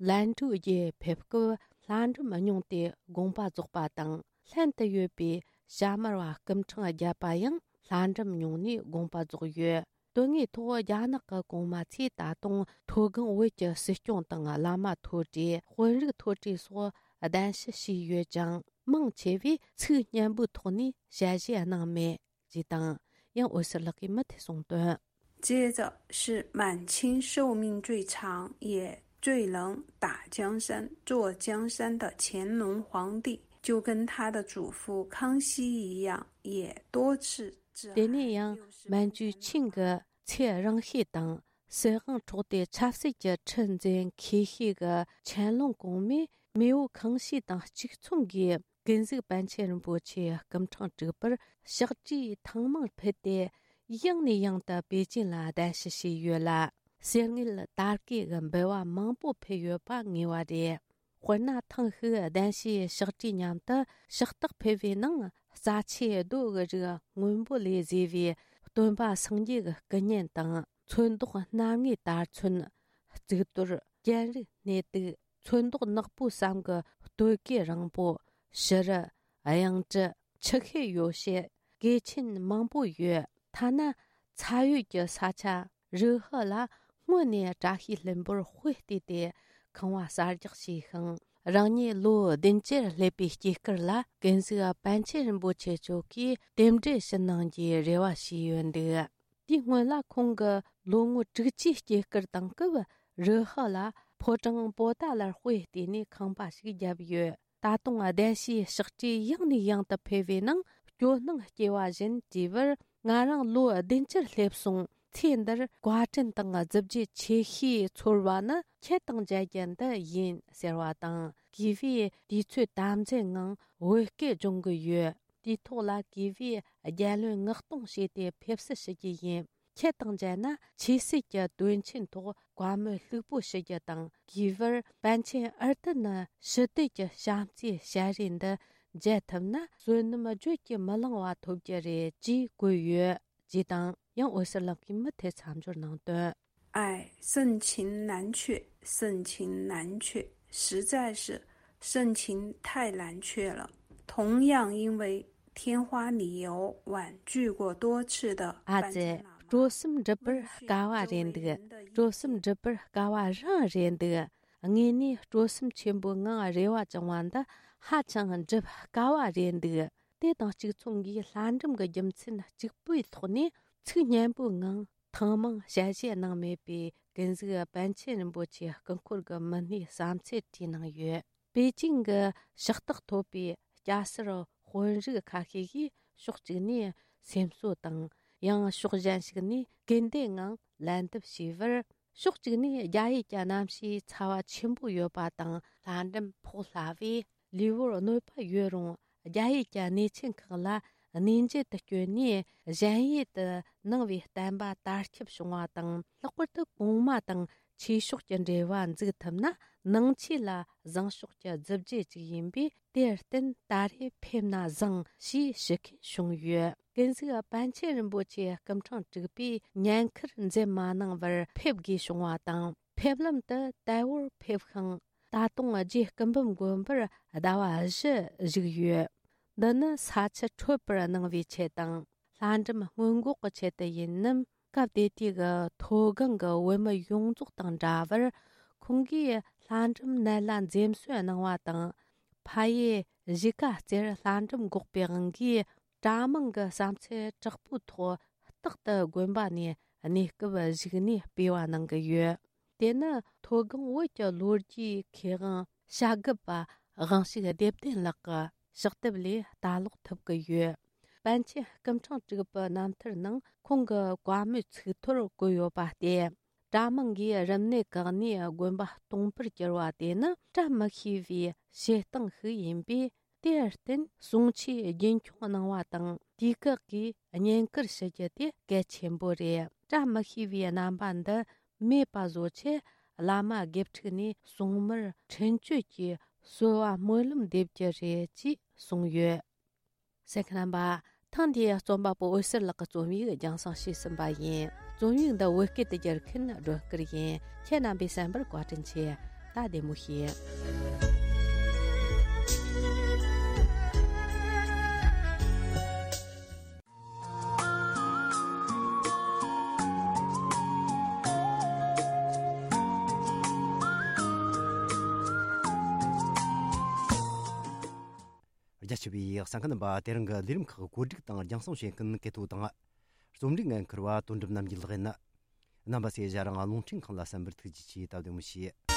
ལན་ཀྲུའུ་རྒྱལ་ཕེབས་སྐབས་ལྷ་འབྲུམ་རྙིང་དེ་དགོངས་པ་རྫོགས་པ་དང་། ལྷན་དུ་ཡོད་པའི་ཞྭ་དམར་བ་སྐུ་ཕྲེང་བརྒྱད་པ་ཡང་ལྷ་འབྲུམ་རྙིང་ནས་དགོངས་པ་རྫོགས་ཡོད། དོན་དངོས་ཐོག་རྒྱ་ནག་གི་གོང་མ་ཚོས་ད་དུང་མཐོ་སྒང་བོད་ཀྱི་སྲིད་སྐྱོང་དང་བླ་མ་མཐོ་གྲས། དཔོན་རིགས་མཐོ་གྲས་སོགས་གདན་ཞུ་བྱས་ཡོད་ཀྱང་། མང་ཆེ་བས་ཚིག་སྙན་པོའི་ཐོག་ནས་ཞལ་བཞེས་གནང་མེད་ཅེས་དང་། ཡང་འོད་ཟེར་ལགས་ཀྱིས་མུ་མཐུད་གསུངས་དོན། 接着是满清寿命最长也最能打江山、坐江山的乾隆皇帝，就跟他的祖父康熙一样，也多次致 དེ་ནས་ཡང་མན་ཇུ་ཆིང་གི་ཚེ་རིང་ཤོས་དང་། སྲིད་དབང་འཕྲོག་སྟེ་ཆབ་སྲིད་ཀྱི་ཁྲི་འཛིན་མཁས་ཤོས་ཀྱི་ཆན་ལུང་གོང་མས་མེས་པོ་ཁང་ཤིས་དང་གཅིག་མཚུངས་ཀྱིས་ཀུན་གཟིགས་པཎ་ཆེན་རིན་པོ་ཆེ་སྐུ་ཕྲེང་དྲུག་པར་ཕྱག་བྲིས་ཐེངས་མང་ཕུལ་ཏེ། ཡང་ནས་ཡང་དུ་པེ་ཅིན་ལ་གདན་ཞུ་བྱས་ཡོད་ལ། གསེར་དངུལ་དར་གོས་ཀྱི་འབུལ་བ་མང་པོ་ཕུལ་ཡོད་པ་ངེས་པ་རེད། དཔེར་ན། ཐེངས་ཤིག་གདན་ཞུའི་ཕྱག་བྲིས་མཉམ་དུ་ཕྱག་རྟགས་ཕུལ་བའི་ནང་། རྩ་ཆེའི་རྡོ་གི་རིགས་སྔོན་པོ་ལས་བཟོས་པའི་སྟོན་པ་སངས་རྒྱས་ཀྱི་སྐུ་བརྙན་དང་། ཚོན་མདོག་སྣ་ལྔའི་དར་ཚོན། གཙུག་ཏོར། གྱེན་རིགས་སྣེ་གཏུག། ཚོན་མདོག་ནག་པོ་བསམ་གྱི་སྟོད་གོས་རིང་པོ། ཕྱུ་རུ། གཡང་ཀྲི། ཆུ་ཤེལ་ཡོ་བྱད། གོས་ཆེན་མང་པོ་ཡོད། ཐ་ན་ཚ་ཡུལ་གྱི་ས་ཆ་རུ་ཧི་ལ་སྔོན་ནས་བཀྲ་ཤིས་ལྷུན་པོར་དཔེ་བལྟས་ཏེ་ཁང་བ་གསར་རྒྱག་བྱས་ཤིང་། རང་ཉིད་ལོ་བདུན་ཅུར་སླེབས་པའི་སྐྱེས་སྐར་ལ་ཀུན་གཟིགས་པཎ་ཆེན་རིན་པོ་ཆེ་མཆོག་གིས་རྟེན་འབྲེལ་ཞུ་གནང་རྒྱུའི་རེ་བ་ཞུས་ཡོད་འདུག་དེའི་སྔོན་ལ་ཁོང་གི་ལོ་ངོ་དྲུག་ཅུའི་སྐྱེས་སྐར་དང་སྐབས། རུ་ཧི་ལ་ཕོ་བྲང་པོ་ཏཱ་ལར་དཔེ་བལྟས་ནས་ཁང་པ་ཞིག་བརྒྱབ་ཡོད། ད་དུང་གདན་ཞུའི་ཕྱག་བྲིས་ཡང་ནས་ཡང་དུ་ཕུལ་བའི་ནང་སྐྱོ་སྣང་སྐྱེ་བ་བཞིན་དྲིས་པར། ང་རང་ལོ་བདུན་ཅུར་སླེབས་སོང་། ཚེ་འདིར་བཀའ་དྲིན་དང་གཟི་བརྗིད་ཆེ་ཤོས་ཚོར་བ་ནི་ཁྱེད་དང་མཇལ་རྒྱུ་འདི་ཡིན་ཟེར་བ་དང་། གུས་པས་དུས་ཚོད་དམ་འཛིན་ངང་བོད་སྐད་སྦྱོང་གི་ཡོད། དུས་ཐོག་ལ་གུས་པས་རྒྱལ་བློན་མངགས་གཏོང་བྱས་ཏེ་ཕེབས་བསུ་ཞུ་རྒྱུ་ཡིན། ཁྱེད་དང་མཇལ་ན་ཆོས་སྲིད་ཀྱི་དོན་ཆེན་ཐོག་བཀའ་མོལ་ལྷུག་པོ་ཞུ་རྒྱུ་དང་། གིས་བར་པཎ་ཆེན་ཨར་ཏི་ནི་ཞི་བདེ་གི་བྱམས་བརྩེའི་ཞལ་རས་འདི་མཇལ་ཐུབ་ན་བསོད་ནམས་བརྗོད་ཀྱིས་མི་ལང་བ་ཐོབ་རྒྱུ་རེད་ཅེས་བཀོད་ཡོད། ཅེས་དང་། ཡང་འོད་ཟེར་ལགས་ཀྱིས་མུ་མཐུད་མཚམས་སྦྱོར་གནང་དོན། 哎，盛情难却，盛情难却，实在是盛情太难却了。同样因为天花理由婉拒过多次的 ཨ་ཙི། སྤྲོ་སེམས་འགྲུབ་པར་དཀའ་བ་རེད་འདུག་སྤྲོ་སེམས་འགྲུབ་པར་དཀའ་བ་རང་རེད་འདུག་དངོས་གནས་སྤྲོ་སེམས་ཆེན་པོའི་ངང་རེ་བ་བཅང་བ་འདི་ཧ་ཅང་འགྲུབ་དཀའ་བ་རེད་འདུག་དེ་དང་གཅིག་མཚུངས་ཀྱིས་ལྷ་འབྲུམ་གྱི་རྒྱུ་མཚན་གཅིག་པུའི་ཐོག་ནས་ཚིག་སྙན་པོའི་ངང་ཐེངས་མང་ཞལ་བཞེས་གནང་མེད་པའི་ཀུན་གཟིགས་པཎ་ཆེན་རིན་པོ་ཆེའི་སྐུ་འཁོར་གྱི་མི་སྣའི་བསམ་ཚུལ་བྲིས་གནང་ཡོད། པེ་ཅིང་གི་ཕྱག་རྟགས་ཐོབ་པའི་སྐྱ་སེར་དཔོན་རིགས་ཁ་ཤས་ཀྱིས་ཕྱོགས་གཅིག་ནས་སེམས་གསོ་དང་། ཡང་ཕྱོགས་གཞན་ཞིག་ནས་སྐུལ་འདེད་ངང་ལན་འདེབས་བྱས་པར། ཕྱོགས་གཅིག་ནས་རྒྱ་ཡུལ་གྱི་གནམ་གཤིས་ཚ་བ་ཆེན་པོ་ཡོད་པ་དང་། ལྷ་འབྲུམ་ཕོག་སླ་བས་ལུས་པོར་གནོད་པ་ཡོད་རུང་། རྒྱ་ཡུལ་གྱི་གནས་ཆེན་ཁག་ལ་གནས་མཇལ་དུ་བསྐྱོད་ནས་གཞན་ཡུལ་དུ་ནང་པའི་བསྟན་པ་དར་ཁྱབ་བྱུང་བ་དང་། ལྷག་པར་དུ་གོང་མ་དང་ཆོས་ཕྱོགས་ཀྱི་འབྲེལ་བ་འཛུགས་ཐུབ་ན་ནང་ཆོས་ལ་བཟང་ཕྱོགས་ཀྱི་མཛུབ་རྗེས་ཅིག་ཡིན་པས། དེར་བརྟེན་ད་རེས་ཕེབས་ན་བཟང་ཞེས་ཞུ་མཁན་བྱུང་ཡོད། ཀུན་གཟིགས་པཎ་ཆེན་རིན་པོ་ཆེའི་སྐུ་ཕྲེང་དྲུག་པས་ཉེན་ཁར་འཛེམ་མ་གནང་བར་ཕེབས་དགོས་བྱུང་བ་དང་། ཕེབས་ལམ་དུ་དལ་བོར་ཕེབས་ཤིང་། ད་དུང་རྗེ་སྐུ་འབུམ་དགོན་པར་ཟླ་བ་བཞི་བཞུགས་ཡོད། འདི་ནི་ས་ཆུ་འཕྲོད་པར་གནང་བའི་ཆེད་དང་། ལྷ་འབྲུམ་སྔོན་འགོག་གི་ཆེད་དུ་ཡིན་ནམ། སྐབས་དེ་དུས་ཀྱི་མཐོ་སྒང་གི་བོད་མི་ཡོངས་རྫོགས་དང་འདྲ་བར། ཁོང་གིས་ལྷ་འབྲུམ་ནད་ལ་འཛེམ་ཟོན་གནང་བ་དང་། ཕ་ཡུལ་གཞིས་ཀ་རྩེར་ལྷ་འབྲུམ་འགོག་པའི་དབང་གིས། གྲྭ་མང་གི་བསམ་ཚུལ་དྲག་པོའི་ཐོག་རྟག་ཏུ་དགོན་པ་ནས་གནས་སྐབས་བཞུགས་ནས་སྤེལ་བ་གནང་གི་ཡོད། དེ་ནི་མཐོ་སྒང་བོད་ཀྱི་ལོ་རྒྱུས་མཁས་དབང་བྱ་རྒོད་པ་དབང་ཕྱུག་བདེ་ལྡན་ལགས་ཀྱི་ཕྱག་དེབ་ལས་ལྟ་ཀློག་ཐུབ་ཀྱི་ཡོད། པཎ་ཆེན་སྐུ་ཕྲེང་དྲུག་པའི་རྣམ་ཐར་ནང་ཁོང་གི་བཀའ་མོལ་ཚིག་ཐོར་བཀོད་ཡོད་པ་སྟེ། གྲྭ་མང་གིས་རིམས་ནད་བཀག་ནས་དགོན་པ་སྟོང་པར་གྱུར་བ་དེ་ནི་བཀྲ་མི་ཤིས་པའི་བྱེད་སྟངས་ཤིག་ཡིན་པས། དེར་བརྟེན་གསུང་ཆོས་རྒྱུན་འཁྱོངས་གནང་བ་དང་། དུས་བཀག་གིས་བསྙེན་བཀུར་ཞུ་རྒྱུ་དེ་གལ་ཆེན་པོ་རེད། བཀྲ་མི་ཤིས་པའི་རྣམ་པ་འདི་མེད་པ་བཟོ་ཆེད། བླ་མ་དགེ་ཕྲུག་ནས་སྲུང་མར་འཕྲིན་བཅོལ་གྱིས་གསོལ་བ་སྨོན་ལམ་འདེབས་རྒྱུ་རེད་ཅེས་གསུངས་ཡོད། གསན་མཁན་རྣམ་པ། ཐེངས་འདིའི་རྩོམ་པ་པོ་འོད་ཟེར་ལགས་ཀྱི་རྩོམ་ཡིག་རྒྱང་སྲིང་བྱས་ཟིན་པ་ཡིན། རྩོམ་ཡིག་འདི་བོད་སྐད་དུ་བསྒྱུར་མཁན་སྒྲོན་སྐུར་ཡིན། ཁྱེད་རྣམ་པས་གསན་པར་བཀའ་དྲིན་ཆེ། ད་བདེ་མོ་བྱོས། རྒྱ་ཆེ་བའི་གསན་མཁན་རྣམ་པ། དེ་རིང་གི་ལས་རིམ་ཁག་གོ་སྒྲིག་དང་རྒྱང་སྲིང་བྱེད་མཁན་གལ་ཐོ་དང་། རྩོམ་སྒྲིག་འགན་འཁུར་བ་དོན་གྲུབ་རྣམ་རྒྱལ་ལགས་ཡིན། རྣམ་པ་ཚོས་ཞལ་རང་རླུང་འཕྲིན་ཁང་ལ་གསན་པར་ཐུགས་རྗེ་ཆེ། ད་བདེ་མོ་བྱོས།